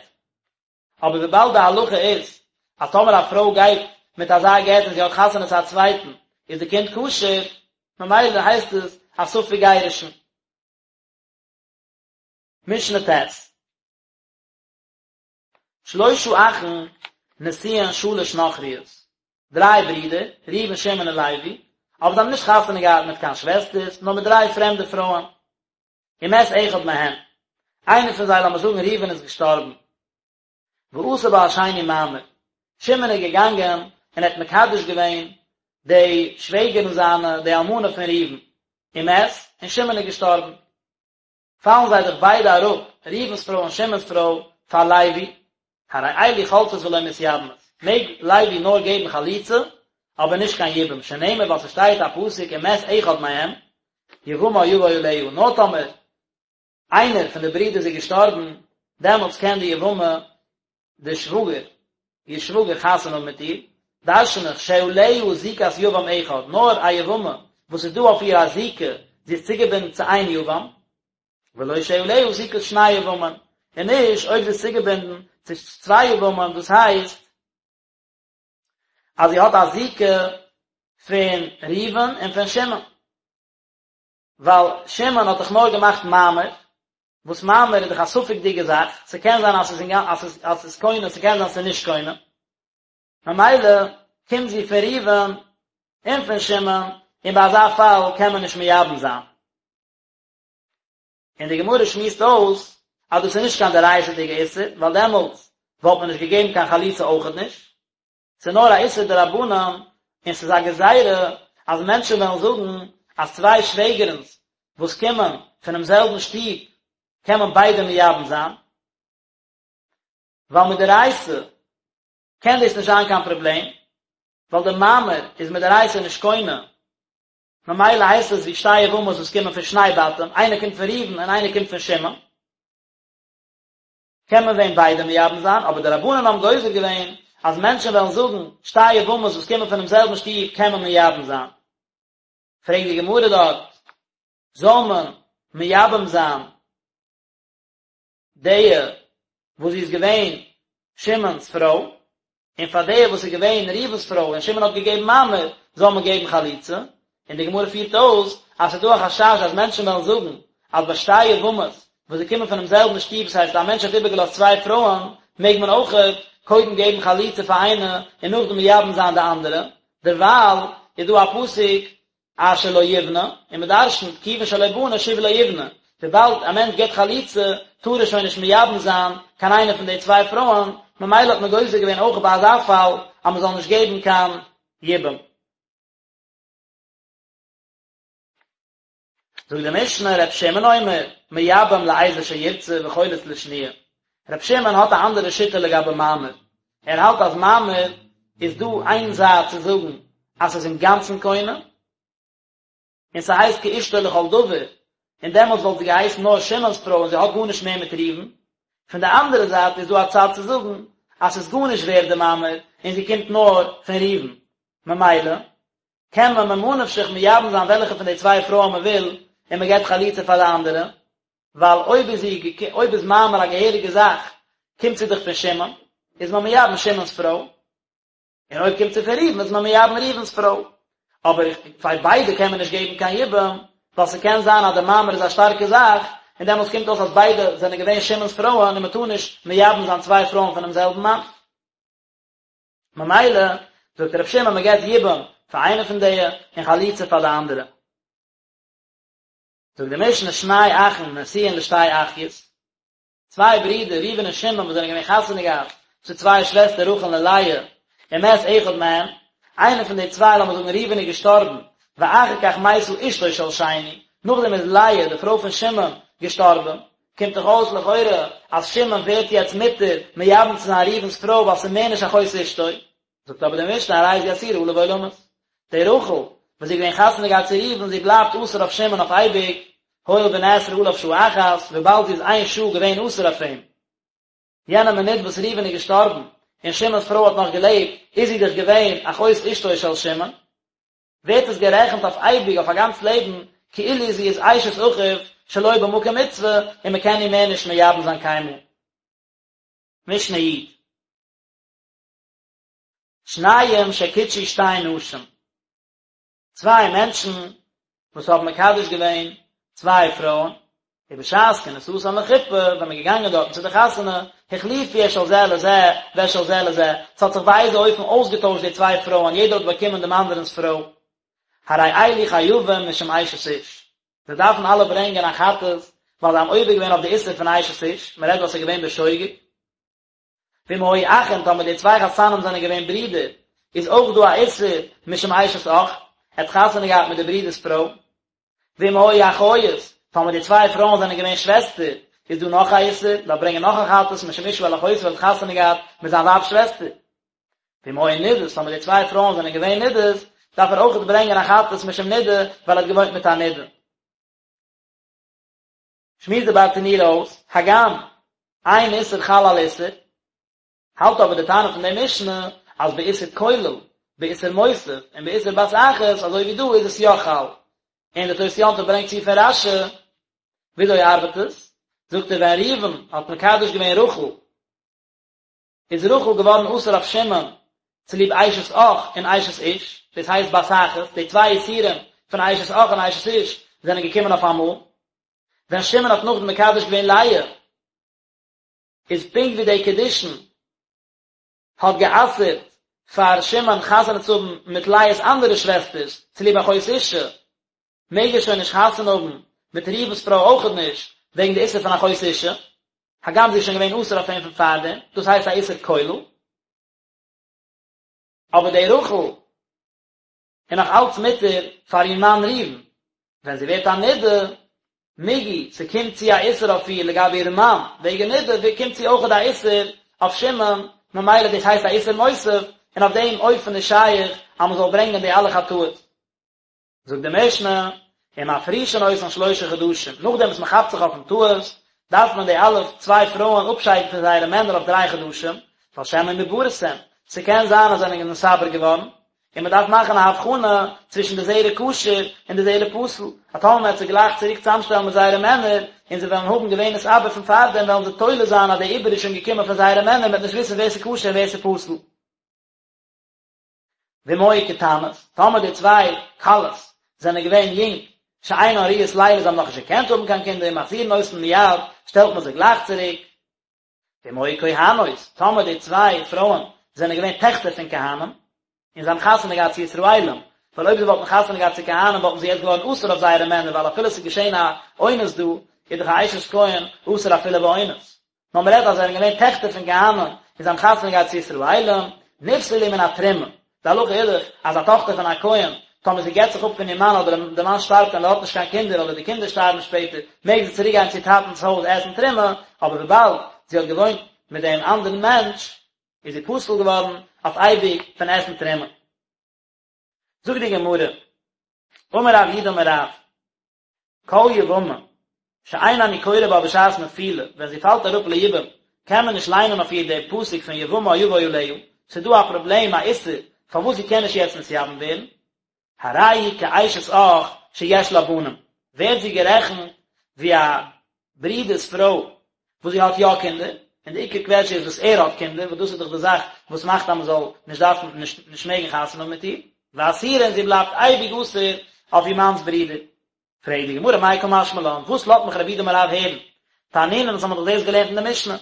אבער וויבאלד די הלכה איז אז טאמער א פרוי גייט מיט אזא גט און זי האט חתונה צו א צווייטן איז די קינד כשר, ממילא הייסט עס א ספק גירושין. משנה ט'. שלשה אחין נשואין שלש נכריות, דריי ברידער, ראובן שמעון און לוי, אבער זיי האבן נישט חתונה געהאט מיט קיין שוועסטערס, נאר מיט דריי פרעמדע פרויען. ומת אחד מהם, איינער פון זיי, לאמיר זאגן ראובן איז געשטארבן, ועשה בה השני מאמר, שמעון איז געגאנגען און ער האט מקדש געווען די שוועגערין זיינע, די אלמנה פון ראובן, ומת, און שמעון איז געשטארבן. פאלן זיי דאך ביידע אראפ, ראובן'ס פרוי און שמעון'ס פרוי, פאר לוי, הרי אלו חולצות ולא מתייבמות, מעג לוי נאר געבן חליצה, אבער נישט קיין יבום, שנאמר ווייל ס'שטייט א פסוק ומת אחד מהם, יבמה יבא עליה, נאר טאמער איינער פון די ברידער איז געשטארבן, דעמאלטס קען די יבמה די שוואגער, איר שוואגער חתונה האבן מיט איר, דרשן איך שעליה זיקת יבם אחד, נאר א יבמה וואס איז דא אויף איר א זיקה, זי איז צוגעבינדן צו איין יבם, ולא שעליה זיקת שני יבמים, און נישט אויב זי איז צוגעבינדן צו צוויי יבמים, דאס הייסט אז זי האט א זיקה פון ראובן און פון שמעון. ווייל שמעון האט דאך נאר געמאכט מאמר, וואס מאמר איז דאך א ספק'דיגע זאך, ס'קען זיין אז ס'איז אז ס'איז אז ס'איז קונה, ס'קען זיין ס'איז נישט קונה, ממילא קומט זי פון ראובן און פון שמעון, און ביי אזא פאל קען מען נישט מייבם זיין. און די גמרא שמועסט אויס אז דאס איז נישט קיין דאורייתא'דיגע איסור, ווייל דעמאלטס וואלט מען נישט געגעבן קיין חליצה אויכעט נישט, ס'איז נאר א איסור דרבנן, און ס'איז א גזירה אז מענטשן וועלן זאגן אז צוויי שוועגערנס וואס קומען פונעם זעלבן שטוב קען מען ביידע מייבם זיין, ווייל מדאורייתא קען דאס נישט זיין קיין פראבלעם, ווייל די מאמר איז מדאורייתא נישט קונה. ממילא הייסט עס ווי שתי יבמות וואס קומען פון שני בתים, איינער קומט פון ראובן און איינער קומט פון שמעון. קען מען ווען ביידע מייבם זיין, אבער די רבנן האבן גוזר געווען אז מענטשן וועלן זאגן שתי יבמות וואס קומען פונעם זעלבן שטוב קען מען מייבם זיין. פרעגט די גמרא דארט, זאל מען מייבם זיין די וואס זי איז געווען שמעון'ס פרוי, און פאר די וואס איז געווען ראובן'ס פרוי און שמעון האט געגעבן מאמר, זאל מען געבן חליצה, און די גמרא פירט אויס אז ס'איז דא א חשש אז מענטשן וועלן זאגן אז ביי שתי יבמות וואס זיי קומען פונעם זעלבן שטוב, דאס הייסט א מענטש האט איבערגעלאזט צוויי פרויען, מעג מען אויכעט קודם געבן חליצה פאר איינע און נאכדעם מייבם זיין די אנדערע, דערווייל איז דא א פסוק אשר לא יבנה, און מען דרשנ'ט כיוון שלא בנה שוב לא יבנה, וויבאלד א מענטש געבט חליצה טאר ער שוין נישט מייבם זיין קיין איינע פון די צוויי פרויען, ממילא האט מען גוזר געווען אויך ביי אזא פאל אז מען זאל נישט געבן קיין יבום. זאגט די משנה ר' שמעון אומר מייבם לאיזה שירצה וחולץ לשניה, ר' שמעון האט א אנדערע שיטה לגבי מאמר, ער האלט אז מאמר איז דא איין זייט צו זאגן אז ס'איז אינגאנצן קונה, און ס'הייסט כאשתו לכל דבר, און דעמאלטס וואלט זי געהייסן נאר שמעון'ס פרוי און זי האט גארנישט מער מיט ראובן, פון די אנדערע זייט איז דא א צד צו זאגן אז ס'איז גארנישט ווערד די מאמר און זי קומט נאר פון ראובן, ממילא קען מען ממה נפשך מייבם זיין וועלכע פון די צוויי פרויען מען וויל, און מען געבט חליצה פאר די אנדערע, ווייל אויב איז זי אויב איז מאמר א געהעריגע זאך, קומט זי דאך פון שמעון, איז מען מייבם שמעון'ס פרוי, און אויב קומט זי פון ראובן איז מען מייבם ראובן'ס פרוי. אבער פאר ביידע קען מען נישט געבן קיין יבום, ווייל ס'קען זיין אז די מאמר איז א שטארקע זאך, און דעמאלטס קומט אויס אז ביידע זענען געווען שמעון'ס פרויען און מען טאר נישט מייבם זיין צוויי פרויען פונעם זעלבן מאן. ממילא זאגט רבי שמעון מען געבט יבום פאר איינע פון די און חליצה פאר די אנדערע. זאגט די משנה שני אחים נשואין לשתי אחיות, צוויי ברידער ראובן און שמעון וואס זענען געווען חתונה געהאט צו צוויי שוועסטער רחל און לאה, ומת אחד מהם, איינער פון די צוויי לאמיר זאגן ראובן איז געשטארבן, ואחר כך מתה אשתו של שני, נאכדעם איז לאה די פרוי פון שמעון געשטארבן, קומט דאך אויס לכאורה אז שמעון ווערט יעצט מותר מייבם צו זיין ראובן'ס פרוי ווייל ס'איז מער נישט אחות אשתו. זאגט אבער די משנה הרי זו אסורה עליו עולמית. די רחל וואס זי איז געווען חתונה געהאט צו ראובן זי בלייבט אסור אויף שמעון אויף אייביג, הואיל ונאסרה עליו שעה אחת, וויבאלד זי איז איין שעה געווען אסור אויף אים. יענע מינוט וואס ראובן איז געשטארבן און שמעון'ס פרוי האט נאך געלעבט איז זי דאך געווען אחות אשתו של שמעון. ווערט עס גערעכנט אויף אייביג אויף א גאנץ לעבן כאילו זי איז אשת אחיו שלא במקום מצוה און מען קען איר מער נישט מייבם זיין קיינמאל. משנה י'. שניים שקידשו שתי נשים, צוויי מענטשן וואס האבן מקדש געווען צוויי פרויען, ובשעת כניסתן לחופה, ווען מ'איז געגאנגען דארטן צו די חתונה, החליפו את של זה לזה, ואת של זה לזה, ס'האט זיך באיזה אופן אויסגעטוישט די צוויי פרויען, יעדער האט באקומען דעם אנדערנ'ס פרוי. הרי אלו חייבים משום אשת איש. זיי דארפן אלע ברענגען א חטאת, ווייל זיי האבן עובר געווען אויף די איסור פון אשת איש, מ'רעדט וואס איז געווען בשוגג. ואם היו אחים, טאמער די צוויי חתנים זענען געווען ברידער, איז אויך דא א איסור משום אשת אח, ער האט חתונה געהאט מיט די ברידער'ס פרוי. ואם היו אחיות, טאמער די צוויי פרויען זענען געווען שוועסטער, איז דא נאך א איסור, דארף ברענגען נאך א חטאת משום אשה אל אחותה ווייל ער האט חתונה געהאט מיט זיין ווייב'ס שוועסטער. ואם היו נידות, טאמער די צוויי פרויען זענען געווען נידות, דארף ער אויך ברענגען א חטאת משום נידה, ווייל ער האט געוואוינט מיט א נידה. שמועסט די ברטנורא אויס, הגם אין איסור חל על איסור, האלט אבער די תנא פון די משנה אז באיסור כולל, באיסור מוסיף, און באיסור בת אחת, אזוי ווי דא איז עס יא חל. און די תוס' יום טוב ברענגט צו פון רש"י, וויאזוי ארבעט עס? זאגט ער ווען ראובן האט מקדש געווען רחל, איז רחל געווארן אסור אויף שמעון צוליב אשת אח און אשת איש, דאס הייסט בת אחת, די צוויי איסורים פון אשת אח און אשת איש זענען געקומען אויף אמאל. ווען שמעון האט נאכדעם מקדש געווען לאה, איז פונקט ווי די קידושין האט גע'אסר'ט פאר שמעון חתונה צו האבן מיט לאה'ס אנדערע שוועסטערס צוליב אחות אשה, מעג ער שוין נישט חתונה האבן מיט ראובן'ס פרוי אויכעט נישט, וועגן די איסור פון אחות אשה, הגם זי איז שוין געווען אסור אויף אים פון פארדעם, דאס הייסט א איסור כולל. אבער די רחל איז נאך אלץ מותר פאר איר מאן ראובן, ווען זי ווערט א נידה, מיגו, ס'קומט צו א איסור אויף איר לגבי איר מאן, וועגן נידה קומט צו אויכעט א איסור אויף שמעון, ממילא דאס הייסט א איסור מוסיף, און אויף דעם אופן איז שייך אז מ'זאל ברענגען די אלע חטאות. זאגט די משנה, ומפרישין אותן שלושה חדשים, נאכדעם וואס מען כאפט זיך אויפן טעות, דארף מען די אלע צוויי פרויען אפשיידן פון זייערע מענער אויף דריי חדשים, ווייל שמא מעוברות הן, ס'קען זיין אז זיי זענען נתעבר געווארן, און מען דארף מאכן א הבחנה צווישן די זרע כשר און די זרע פסול, אז טאמער מען וועט זיי גלייך צוריק צוזאמשטעלן מיט זייערע מענער, און זיי וועלן האבן געווען נתעבר פון פארדעם וועלן זיי תולה זיין אז די עיבור איז שוין געקומען פון זייערע מענער, מען וועט נישט וויסן ווער ס'איז כשר און ווער ס'איז פסול. ואם היו קטנות, טאמער די צוויי כלות זענען געווען יונג, שאינן ראויות לילד זיי האבן נאכנישט געקענט האבן קיין קינדער, מחזירין אותן מיד, שטעלט מען זיי גלייך צוריק. ואם היו כהנות, טאמער די צוויי פרויען זענען געווען טעכטער פון כהנים, און זיי האבן חתונה געהאט צו ישראלים, ווייל אויב זיי וואלטן חתונה געהאט צו כהנים וואלטן זיי יעצט געווארן אסור אויף זייערע מענער, ווייל אפילו עס איז געשען א אונס דא, איז דאך א אשת כהן אסור אפילו באונס. נאר מען רעדט אז זיי זענען געווען טעכטער פון כהנים און זיי האבן חתונה געהאט צו ישראלים, נפסלו מן התרומה. די הלכה איז דאך אז א טאכטער פון א כהן, טאמער זי גט זיך אפ פון איר מאן אדער די מאן שטארבט און ער האט נישט קיין קינדער אדער די קינדער שטארבן שפעטער, מעג זי צוריק גיין צו טאטנ'ס הויז עסן תרומה, אבער וויבאלד זי האט געוואוינט מיט דעם אנדערן מענטש, איז זי פסול געווארן אויף אייביג פון עסן תרומה. זאגט די גמרא, אמר רב יהודה אמר רב, כל יבמה, שאין אני קורא בה בשעת נפילה, ווען זי פאלט אראפ ליבום, קען מען נישט ליינען אויף איר די פסוק פון יבמה יבוא עליה, ס'איז דא א פראבלעם א איסור פארוואס זי קען נישט יעצט נתייבם ווערן, הרי היא כאשת אח שיש לה בנים, ווערט זי גערעכנט ווי א ברודער'ס פרוי וואס זי האט יא קינדער, און די עיקר קוועטש איז וואס ער האט קינדער, וואס דאס איז דאך די זאך וואס מאכט אז מען זאל נישט דארפן נישט נישט מעגן חתונה האבן מיט איר, ואסורה און זי בלייבט אייביג אסור אויף איר מאנ'ס ברודער. פרעגט די גמרא מאי קא משמע לן, וואס לאזט מיך רב יהודה אמר רב הערן? תנינא, דאס האבן מיר דאך דאס געלערנט אין די משנה,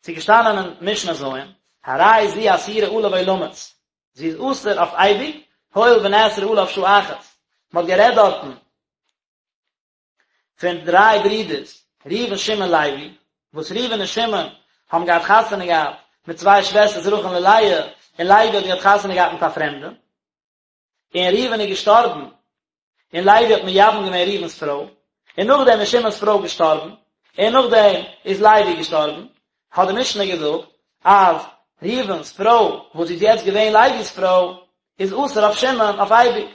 ס'איז געשטאנען אין משנה ז', הרי זו אסורה עליו עולמית, זי איז אסור אויף אייביג, הואיל ונאסרה עליו שעה אחת, מען האט גערעדט דארטן פון דריי ברידערס, ראובן שמעון לוי, וואס ראובן און שמעון האבן געהאט חתונה געהאט מיט צוויי שוועסטערס רחל און לאה, און לוי האט געהאט חתונה געהאט מיט א פרעמדע, און ראובן איז געשטארבן, און לוי האט מייבם געווען ראובן'ס פרוי, און נאכדעם איז שמעון'ס פרוי געשטארבן, און נאכדעם איז לוי געשטארבן, האט די משנה געזאגט אז ראובן'ס פרוי, וואס איז יעצט געווען לוי'ס פרוי, איז אסור אויף שמעון אויף אייביג.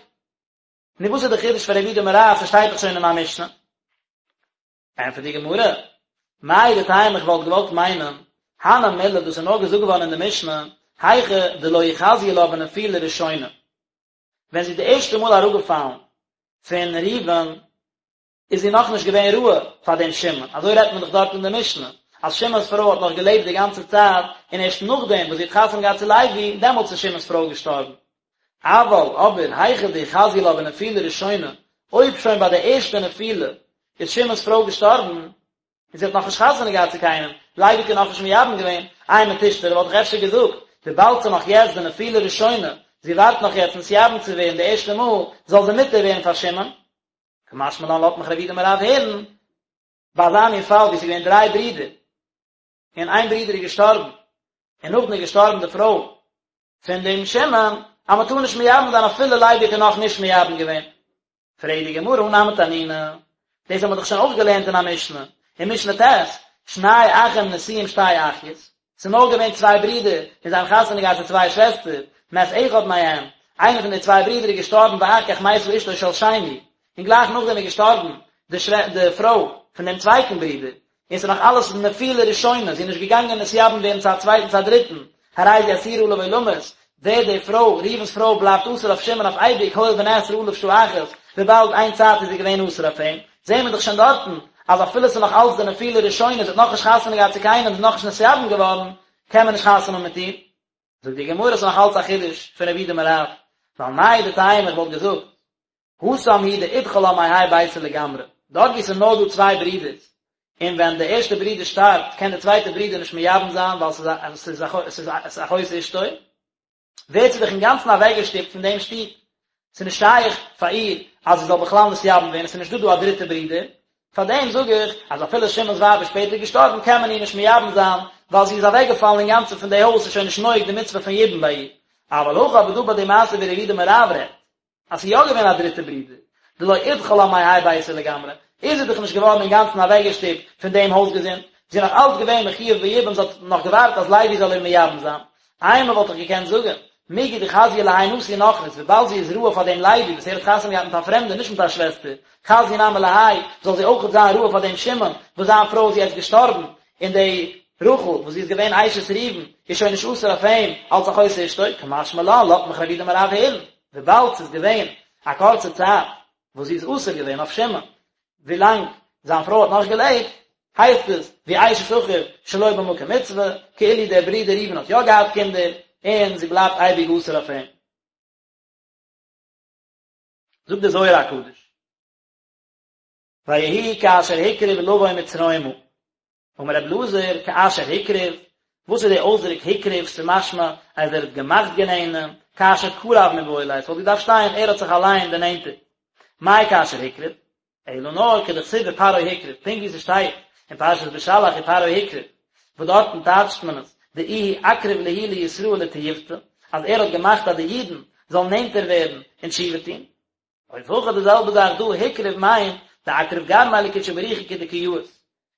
נו וואס איז די חידוש פון רב יהודה אמר רב, ס'שטייט דאך שוין אין א משנה. ענטפערט די גמרא, מהו דתימא איך וואלט געוואלט מיינען, הני מילי דאס איז נאר געזאגט געווארן אין די משנה, היכא דלא איחזיא לה בנפילה ראשונה, ווען זי איז די ערשטע מאל אראפגעפאלן פון ראובן, איז זי נאכנישט געווען ראוי פאר דעם שמעון, אזוי רעדט מען דאך דארט אין די משנה, אז שמעון'ס פרוי האט נאך געלעבט די גאנצע צייט, און ערשט נאכדעם וואס זי האט חתונה געהאט צו לוי, דעמאלטס איז שמעון'ס פרוי געשטארבן. אבל, אבער, היכא דאיחזיא לה בנפילה ראשונה, אויב שוין ביי די ערשטע נפילה איז שמעון'ס פרוי געשטארבן, און זי האט נאכנישט חתונה געהאט צו קיינעם, לוי האט איר נאכנישט מייבם געווען, אימא תישתרי וואלט איך אפשר געזאגט, וויבאלד ס'איז נאך יעצט די נפילה ראשונה, זי ווארט נאך יעצט נתייבם צו ווערן די ערשטע מאל, זאל זי מותר ווערן פאר שמעון. קא משמע לן לאזט מיך רב יהודה אמר רב הערן, ביי אזא מין פאל ווי ס'איז געווען דריי ברידער, און איין ברודער איז געשטארבן, און נאכדעם איז געשטארבן די פרוי פון דעם שמעון, אז מען טאר נישט מייבם זיין אפילו לוי האט איר נאך נישט מייבם געווען. פרעגט די גמרא הא נמי תנינא, דאס האבן מיר דאך שוין אויך געלערנט אין א משנה, אין משנה ט', שני אחים נשואים שתי אחיות, ס'איז נאר געווען צוויי ברידער און זיי האבן חתונה געהאט צו צוויי שוועסטער, מת אחד מהם, איינער פון די צוויי ברידער איז געשטארבן ואחר כך מתה אשתו של שני, און גלייך נאכדעם איז געשטארבן די די פרוי פון דעם צווייטן ברודער, און ס'איז נאך אלעס נפילה ראשונה, זי איז נישט געגאנגען נתייבם ווערן צו א צווייטן צו א דריטן, הרי זו אסורה עליו עולמית, ווער די פרוי, ראובן'ס פרוי, בלייבט אסור אויף שמעון אויף אייביג, הואיל ונאסרה עליו שעה אחת, וויבאלד איין צייט איז זי געווען אסור אויף אים, זעהן מיר דאך שוין דארטן, אז אפילו ס'איז נאך אלץ די נפילה ראשונה, זי האט נאכנישט חתונה געהאט צו קיינעם, זי איז נאכנישט נתייבם געווארן, קען מען נישט חתונה האבן מיט איר. זאגט די גמרא ס'איז נאך אלץ א חידוש פון רב יהודה אמר רב, ווייל מהו דתימא איך וואלט געזאגט, התם הוא דאידחי לה מהאי ביתא לגמרי, דארט וואו ס'איז נאר דא צוויי ברידערס, און ווען די ערשטע ברודער שטארבט קען די צווייטע ברודער נישט מייבם זיין ווייל ס'איז אחות אשתו, ווערט זי דאך אינגאנצן אוועקגעשטופט פון דעם שטוב, ס'איז נישט שייך פאר איר אז זי זאל בכלל נתייבם ווערן, עס איז נישט דא דא א דריטע ברודער, פאר דעם זאג איך אז אפילו שמעון'ס ווייב איז שפעטער געשטארבן קען מען איר נישט מייבם זיין, ווייל זי איז אוועקגעפאלן אינגאנצן פון די הויז, ס'איז שוין נישט נוהג די מצוה פון יבום ביי איר. אבל הכא אבער דא ביי די מעשה ווי רב יהודה אמר רב רעדט, אז ס'איז יא געווען א דריטע ברודער, דלא אידחי לה מהאי ביתא לגמרי, איז זי דאך נישט געווארן אינגאנצן אוועקגעשטופט פון דעם הויזגעזינד, זי איז נאך אלץ געווען מחויב ביבום, זי האט נאך געווארט אז לוי זאל איר מייבם זיין. אימא וואלט איך געקענט זאגן, מיגו דחזיא להאי נשוי נכרית, וויבאלד זי איז ראוי פאר דעם לוי וואס ער האט חתונה געהאט מיט א פרעמדע נישט מיט א שוועסטער, חזיא נמי להאי, זאל זי אויכעט זיין ראוי פאר דעם שמעון וואס זיין פרוי איז יעצט געשטארבן, און די רחל וואס זי איז געווען אשת ראובן איז שוין נישט אסור אויף אים אלץ אחות אשתו, קא משמע לן לאזט מיך רב יהודה אמר רב הערן, וויבאלד ס'איז געווען א קורצע צייט וואס זי איז אסור געווען אויף שמעון, ווילאנג זיין פרוי האט נאך געלעבט, הייסט עס ווי אשת אחיו שלא במקום מצוה, כאילו דער ברודער ראובן האט יא געהאט קינדער, און זי בלייבט אייביג אסור אויף אים. זאגט דער זוהר הקדוש. ויהי כאשר הקריב לבוא מצרימה. אמר רבי אלעזר, כאשר הקריב, וואס איז די אויסדרוק הקריב, ס'איז משמע אז ער האט געמאכט גענענען, כאשר קרב מיבעי ליה, ס'וואלט געדארפט שטיין ער האט זיך אליין דערנענטערט. מאי כאשר הקריב? אלא נאר כדכתיב ופרעה הקריב, פונקט ווי ס'שטייט אין פרשת בשלח ופרעה הקריב, וואס דארטן טייטשט מען עס, דאיהו אקריב להו לישראל לתיובתא, אז ער האט געמאכט אז די אידן זאלן נענטער ווערן און תשובה טון. אוף הכא די זעלבע זאך דא, הקריב מיינט דאקריב גרמיה לקודשא בריך הוא כדקא יאות,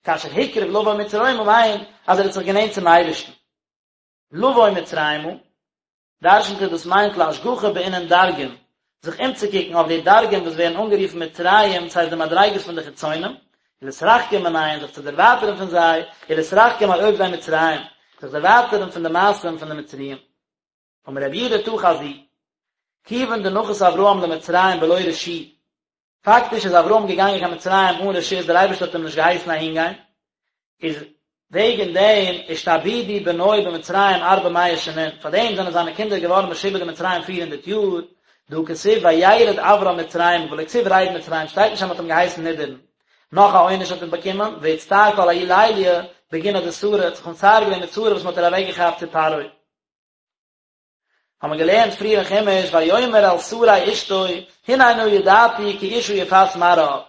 כאשר הקריב לבוא מצרימה מיינט אז ער האט זיך גענענט צום אייבערשטן. לבוא מצרימה, דרשנ'ט ער דאס מיינט לאשגחא באינון דרגין, זיך אומצוקוקן אויף די דרגין וואס ווערן אנגערופן מצרים, ס'הייסט די מדריגות פון די חיצונים, ולאתרחקא מינייהו זיך צו דערווייטערן פון זיי, ולאתרחקא מעובדי מצרים, זיך דערווייטערן פון די מעשים פון די מצריים. אמר רבי יהודה תא חזי, כיוון דנחת אברהם למצרים בלא רשו, פאקטיש איז אברהם געגאנגען קיין מצרים אן רשות, דער אייבערשטער האט אים נישט געהייסן אהין גיין, איז וועגן דעם אשתעבידו בנוי במצרים ארבע מאות שנין, פאר דעם זענען זיינע קינדער געווארן משועבד אין מצרים פיר הונדערט יאר, דהא כתיב וירד אברם מצרימה ולא כתיב רד מצרים, שטייט נישט אז מען האט אים געהייסן נידערן. נאך א עונש האט ער באקומען, ואצטער כל ההוא ליליא בגינה דשרה, האט זיך מצער געווען מיט שרה וואס מען האט איר אוועקגעכאפט צו פרעה. האבן מיר געלערנט פריער אין חומש ויאמר אל שרי אשתו הנה נא ידעתי כי אשה יפת מראה את,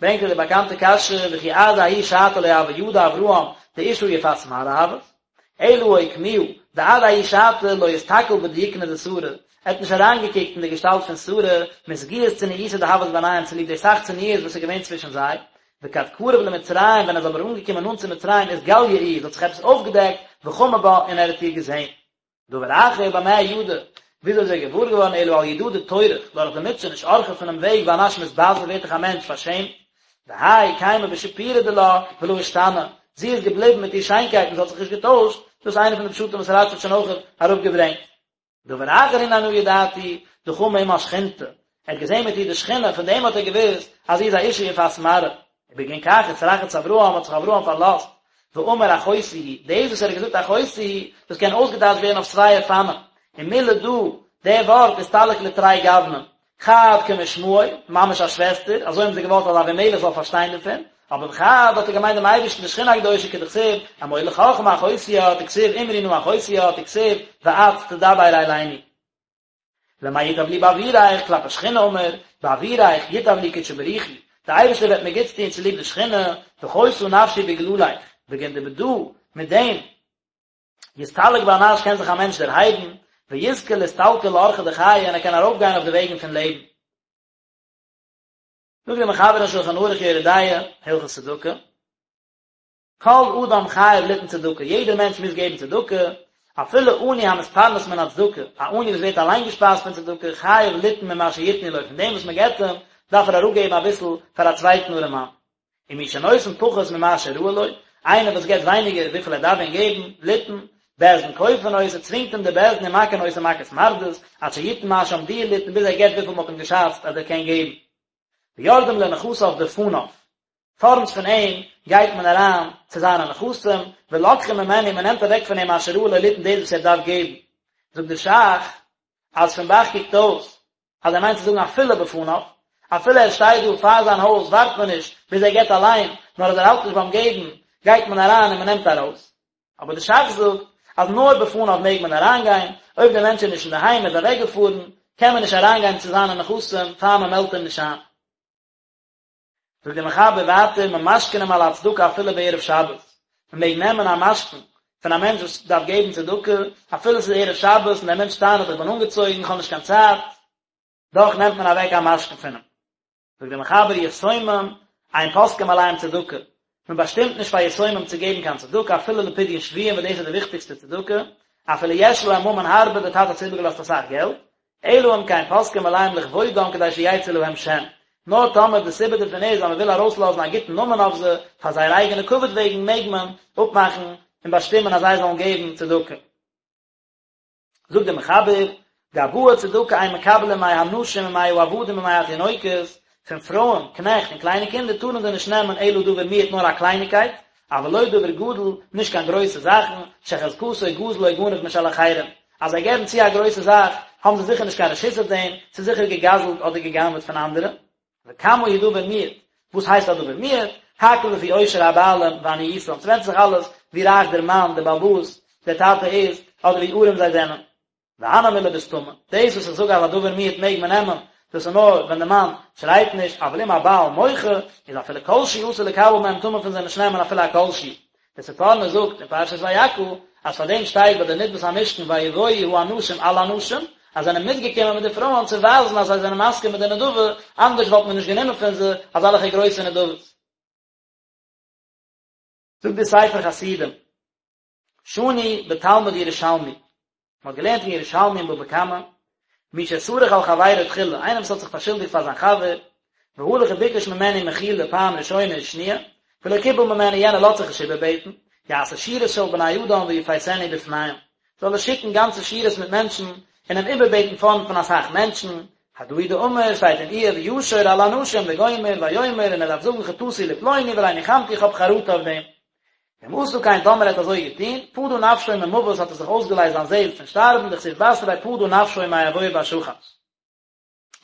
ברענגט ער די באקאנטע קשיא וכי עד ההיא שעתא לא הוה ידע אברהם דאשה יפת מראה הות, אלא אוקמוה דעד ההיא שעתא לא אסתכל בדיוקנא דשרה, ער האט נישט אריינגעקוקט אין די געשטאלט פון שרה, מסגיאות צניעותא דהוות ביניהם צוליב די סך צניעות וואס איז געווען צווישן זיי, וכד קריב למצרים ווען ער איז אבער אנגעקומען נאנט צו מצרים אתגליא איהי, עס האט זיך עפעס אויפגעדעקט וחמא בה און ער האט איר געזען. דבר אחר במה ידע, וויאזוי איז ער געוואר געווארן אלא על ידא דטורח, דורך די מוטשעניש אורחא פונעם וועג בר נש מתבזה ווערט דאך א מענטש פארשעמט, והאי קיימא בשיפורא דילה ולא אשתני, זי איז געבליבן מיט איר שיינקייט און זי האט זיך נישט געטוישט, דאס איז איינע פון די פשטים וואס רש"י האט שוין אויך אראפגעברענגט. דבר אחר הנה נא ידעתי, דחמא עמה שכינתא, ער האט געזען מיט איר די שכינה, פון דעם האט ער געוואוסט אז זי איז א אשה יפת מראה. ובגין כך אתרחץ אברהם האט זיך אברהם פארלאזט, ואמר אחותי היא, דאס וואס ער האט געזאגט אחותי היא, דאס קען אויסגעטייטשט ווערן אויף צוויי אופנים, ומילה דא, די ווארט אסתלק לתרי גוונין, חד כמשמעו, ממש א שוועסטער, אזוי האבן זיי געוואלט אז אבימלך זאל פארשטיין דערפון, אבער וחד האט ער געמיינט דעם אייבערשטן די שכינה הקדושה כדכתיב, אמור לחכמה אחותי את וכתיב אמרי נא אחותי את וכתיב ואת תדבר אלינו. למה ייטב לי בעבורך, כלפי שכינה אמר, בעבורך ייטב לי קודשא בריך הוא, דער אייבערשטער וועט מיר גוטס טון צוליב די שכינה, וחיתה נפשי בגללך, בגין דבדא, מיט דעם יסתלק בר נש קען זיך א מענטש דערהייבן, ויזכה לאסתלקא לאורחא דחיי און ער קען ארויפגיין אויף די וועגן פון לעבן. זאגט דער מחבר אין שלחן ערוך יורה דעה, הלכות צדקה, כל אדם חייב ליתן צדקה, יעדער מענטש מוז געבן צדקה, אפילו עני המתפרנס מן הצדקה, א עני וואס ווערט אליין געשפייזט פון צדקה, חייב ליתן ממה שיתנו לו, פון דעם וואס מען געבט אים, דארף ער אראפגעבן אביסל פאר א צווייטן ארעמאן. ומי שנותן פחות ממה שראוי לו, איינער וואס געבט ווייניגער וויפיל ער דארף ווען געבן, ליתן, בית דין כופין אותו, צווינגט אים די בית דין ומכין אותו מכת מרדות, עד שיתן מה שאמדוהו ליתן, ביז ער געבט וויפיל מען האט אים געשאצט אז ער קען געבן. ויורדים לנכסיו בפניו, פארנט פון אים גייט מען אריין צו זיינע נכסים, ולוקחים ממנו, מען נעמט אוועק פון אים מה שראוי לו ליתן דאס וואס ער דארף געבן. זאגט דער ש"ך, אז פון ב"ח קוקט אויס אז ער מיינט צו זאגן אפילו בפניו, אפילו ער שטייט דא פאר זיין הויז ווארט מען נישט ביז ער געבט אליין, נאר אז ער האלט נישט ביים געבן גייט מען אריין און מען נעמט ארויס. אבער די ש"ך זאגט אז נאר בפניו מעג מען אריינגיין, אויב דער מענטש איז נישט אינדערהיים ער איז אוועקגעפארן, קען מען נישט אריינגיין צו זיינע נכסים פאר מען מעלדט אים נישט איין. זאגט דער מחבר ווייטער ממשכנים על הצדקה אפילו בערב שבת, מען מעג נעמען א משכון פון א מענטש וואס דארף געבן צדקה, אפילו ס'איז ערב שבת און דער מענטש טענה'ט איך בין אנגעצויגן איך האב נישט קיין צייט, דאך נעמט מען אוועק א משכון פון אים. זאגט דער מחבר יתומים אין פוסקים עליהם צדקה, מען באשטימט נישט פאר יתומים צו געבן קיין צדקה אפילו לפדיון שבויים וואס דאס איז די וויכטיגסטע צדקה, אפילו יש להם ממון הרבה, דער טאטע האט איבערגעלאזט אסאך געלט, אלא אם כן פוסקים עליהם לכבודם כדי שיצא להם שם, נאר טאמער די סיבה דערפון איז אז מען וויל ארויסלאזן א גוטן נאמען אויף זיי, פאר זייער אייגענע כבוד וועגן מעג מען אפמאכן און באשטימען אז זיי זאלן געבן צדקה. זאגט דער מחבר, גבאי צדקה אין מקבלים מהנשים ומהעבדים ומהתינוקות, פון פרויען, קנעכט און קליינע קינדער טארן זיי נישט נעמען אלא דבר מועט נאר א קלייניקייט, אבל לא דבר גדול, נישט קיין גרויסע זאכן, שחזקתו גזל או גנב משל אחרים, אז זיי געבן צו א גרויסע זאך, האבן זיי זיכער נישט קיין רשות אויף דעם, ס'איז זיכער געגזלט אדער גע'גנב'עט פון אנדערע. וכמה הוא דבר מועט, וואס הייסט א דבר מועט? הכל לפי עושר הבעלים ועניותם, ס'ווענדט זיך אלעס ווי רייך דער מאן, דער בעל הבית, דער טאטע איז, אדער ווי ארעם זיי זענען. והני מילי בסתמא, דאס וואס איך זאג אז א דבר מועט מעג מען נעמען, דאס איז נאר ווען דער מאן שרייט נישט, אבל אם הבעל מוחה, איז אפילו כל שהוא אסור לקבל מהם טאר מען פון זיי נישט נעמען אפילו א כל שהוא. דער ספורנו זאגט אין פרשת ויקהל אז פאר דעם שטייט ביי די נדבת המשכן ויבואו האנשים על הנשים, אז זיי זענען מיטגעקומען מיט די פרויען צו ווייזן אז זיי זענען מסכים מיט די נדבה, אנדערש וואלט מען נישט גענומען פון זיי אזעלכע גרויסע נדבות. זאגט דער ספר חסידים, שנו בתלמוד ירושלמי, מען האט געלערנט אין ירושלמי אין בבא קמא, מי שסרח על חברו תחילה, איינער וואס האט זיך פארשולדיגט פאר זיין חבר, והלך וביקש ממנו מחילה פעם ראשונה ושניה, ולא קיבל ממנו, יענער לאזט זיך נישט איבערבעטן, יעשה שורות של בני אדם ויפייסנו בפניהם, זאל ער שיקן גאנצע שורות מיט מענטשן, און אים איבערבעטן פארנט פון אסאך מענטשן, הדא הוא דאמר, שטייט אין איוב, ישור על אנשים וגומר, ויאמר, און ער דארף זאגן חטאתי לפלוני והרי ניחמתי איך האב חרטה אויף דעם. ואם עשה כן טאמער ער האט אזוי געטון, פדה נפשו ממוות האט ער זיך אויסגעלייזט זיין זעהל פון שטארבן, דכתיב בתריה פדה נפשו מעבור בשחת.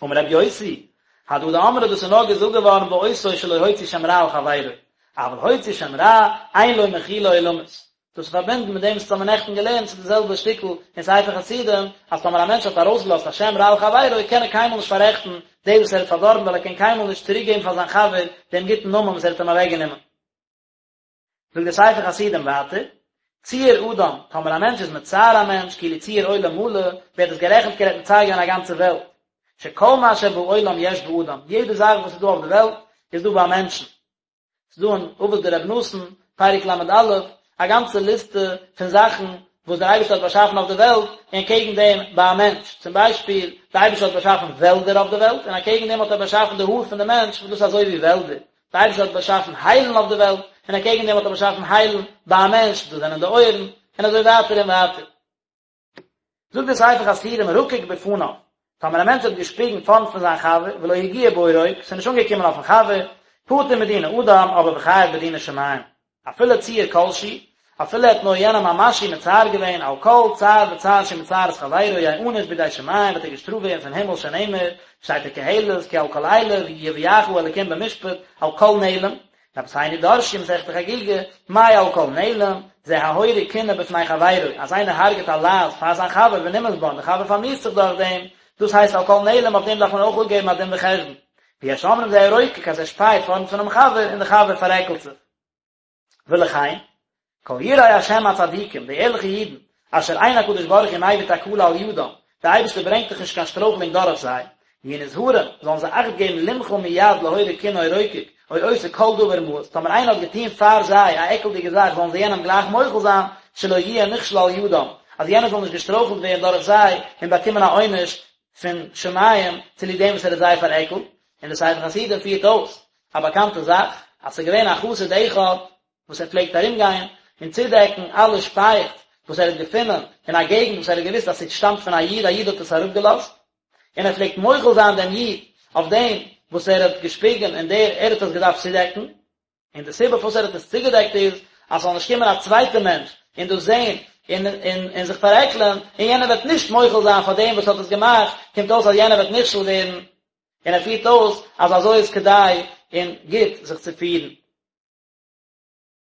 אמר רבי יוסי, הדא דאמרי דאס איז נאר געזאגט געווארן באותו שלא הוציא שם רע על חברו, אבל הוציא שם רע, אין לו מחילה עולמית. דאס איז פארבינדן מיט דעם וואס האבן מיר נעכטן געלערנט ס'איז די זעלבע שטיקל אין ספר חסידים, אז טאמער א מענטש האט ארויסגעלאזט א שם רע על חברו קען ער קיינמאל נישט פאררעכטן דאס וואס ער האט פארדארבן ווייל ער קען קיינמאל נישט צוריקגעבן פאר זיין חבר דעם גוטן נאמען וואס ער האט אים אוועקגענומען. זאגט דער ספר חסידים ווייטער, ציער אדם, טאמער א מענטש איז מצער א מענטש, כאילו ציער עולם מלא, ווערט עס גערעכנט כאילו ער האט מצער געווען א גאנצע וועלט. שכל מה שבעולם יש באדם, יעדע זאך וואס איז דא אויף די וועלט, איז דא ביי מענטשן. ס'איז דא אין אבות דרבי נתן, פרק ל"א, א גאנצע ליסטע פון זאכן וואס דער אייבערשטער האט באשאפן אויף די וועלט, און קעגן דעם ביי א מענטש. צום ביישפיל, דער אייבערשטער האט באשאפן וועלדער אויף די וועלט, און אקעגן דעם האט ער באשאפן די האר פון די מענטש, וואס דאס איז אזוי ווי וועלדער. דער אייבערשטער האט באשאפן היילן אויף די וועלט, און אקעגן דעם האט ער באשאפן היילן ביי א מענטש, דאס זענען די אויערן, און אזוי ווייטער און ווייטער. זאגט דער ספר חסידים רקק בפניו, טאמער א מענטש האט געשפיגן פארנט פון זיין חבר, ולא הגיע בו רוק, ס'איז נישט אנגעקומען אויפן חבר, פטור מדיני אדם, אבער וחייב בדיני שמים. אפילו ציער כל שהוא, אפילו ער האט נאר יענעם א משהו מצער געווען, על כל צער וצער שמצער את חברו יענש בידי שמים וועט ער געשטראפט ווערן פון הימל שנאמר, שטייט אין קהלת, כי על כל אלה יביאך אלקים במשפט, על כל נעלם, רבותינו דרשו מסכת חגיגה, מאי על כל נעלם, זה ההורג כינה בפני חברו, אז איינער הרג'ט א לייז פאר זיין חבר ונמאס בה און דער חבר פארמיאוסט זיך דורך דעם, דאס הייסט על כל נעלם אויף דעם דארף מען אויך אפגעבן א דין וחשבון. ויש אומרים זה הרוקק אז ער שפייט פארנט פונעם חבר און דער חבר פארעקלט זיך. ולכן, כל יראי השם הצדיקים, די ערליכע אידן, אשר אין הקדוש ברוך הוא מביא תקלה על ידם, דער אייבערשטער ברענגט דאך נישט קיין שטרויכלונג דורך זיי, יהיו נזהרים, זאלן זיי אכט געבן למחול מיד להורג כינה או רוקק, או עושה כל דבר מאוס, טאמער איינער האט געטון פאר זיי א עקלדיגע זאך זאלן זיי יענעם גלייך מוחל זיין, שלא יהיה נכשל על ידם, אז יענער זאל נישט געשטרויכלט ווערן דורך זיי און באקומען א עונש פון שמים צוליב דעם וואס ער האט זיי פארעקלט, און דער ספר חסידים פירט אויס א באקאנטע זאך, אז ס'איז געווען א חסיד אחד וואס ער פלעגט ארום גיין און צודעקן אלע שפייעכץ וואס ער האט געפונען אין א געגנט וואס ער האט געוואוסט אז ס'שטאמט פון א איד, א איד האט עס אראפגעלאזט, און ער פלעגט מוחל זיין דעם איד אויף דעם וואס ער האט געשפיגן און דער ער האט עס געדארפט צודעקן. און די סיבה פארוואס ער האט עס צוגעדעקט איז, אז ס'זאל נישט קומען א צווייטער מענטש און דאס זען און און און זיך פארעקלען, און יענער וועט נישט מוחל זיין פאר דעם וואס האט עס געמאכט, קומט אויס אז יענער וועט נכשל ווערן, און ער פירט אויס אז אזוי איז כדאי און גוט זיך צו פירן.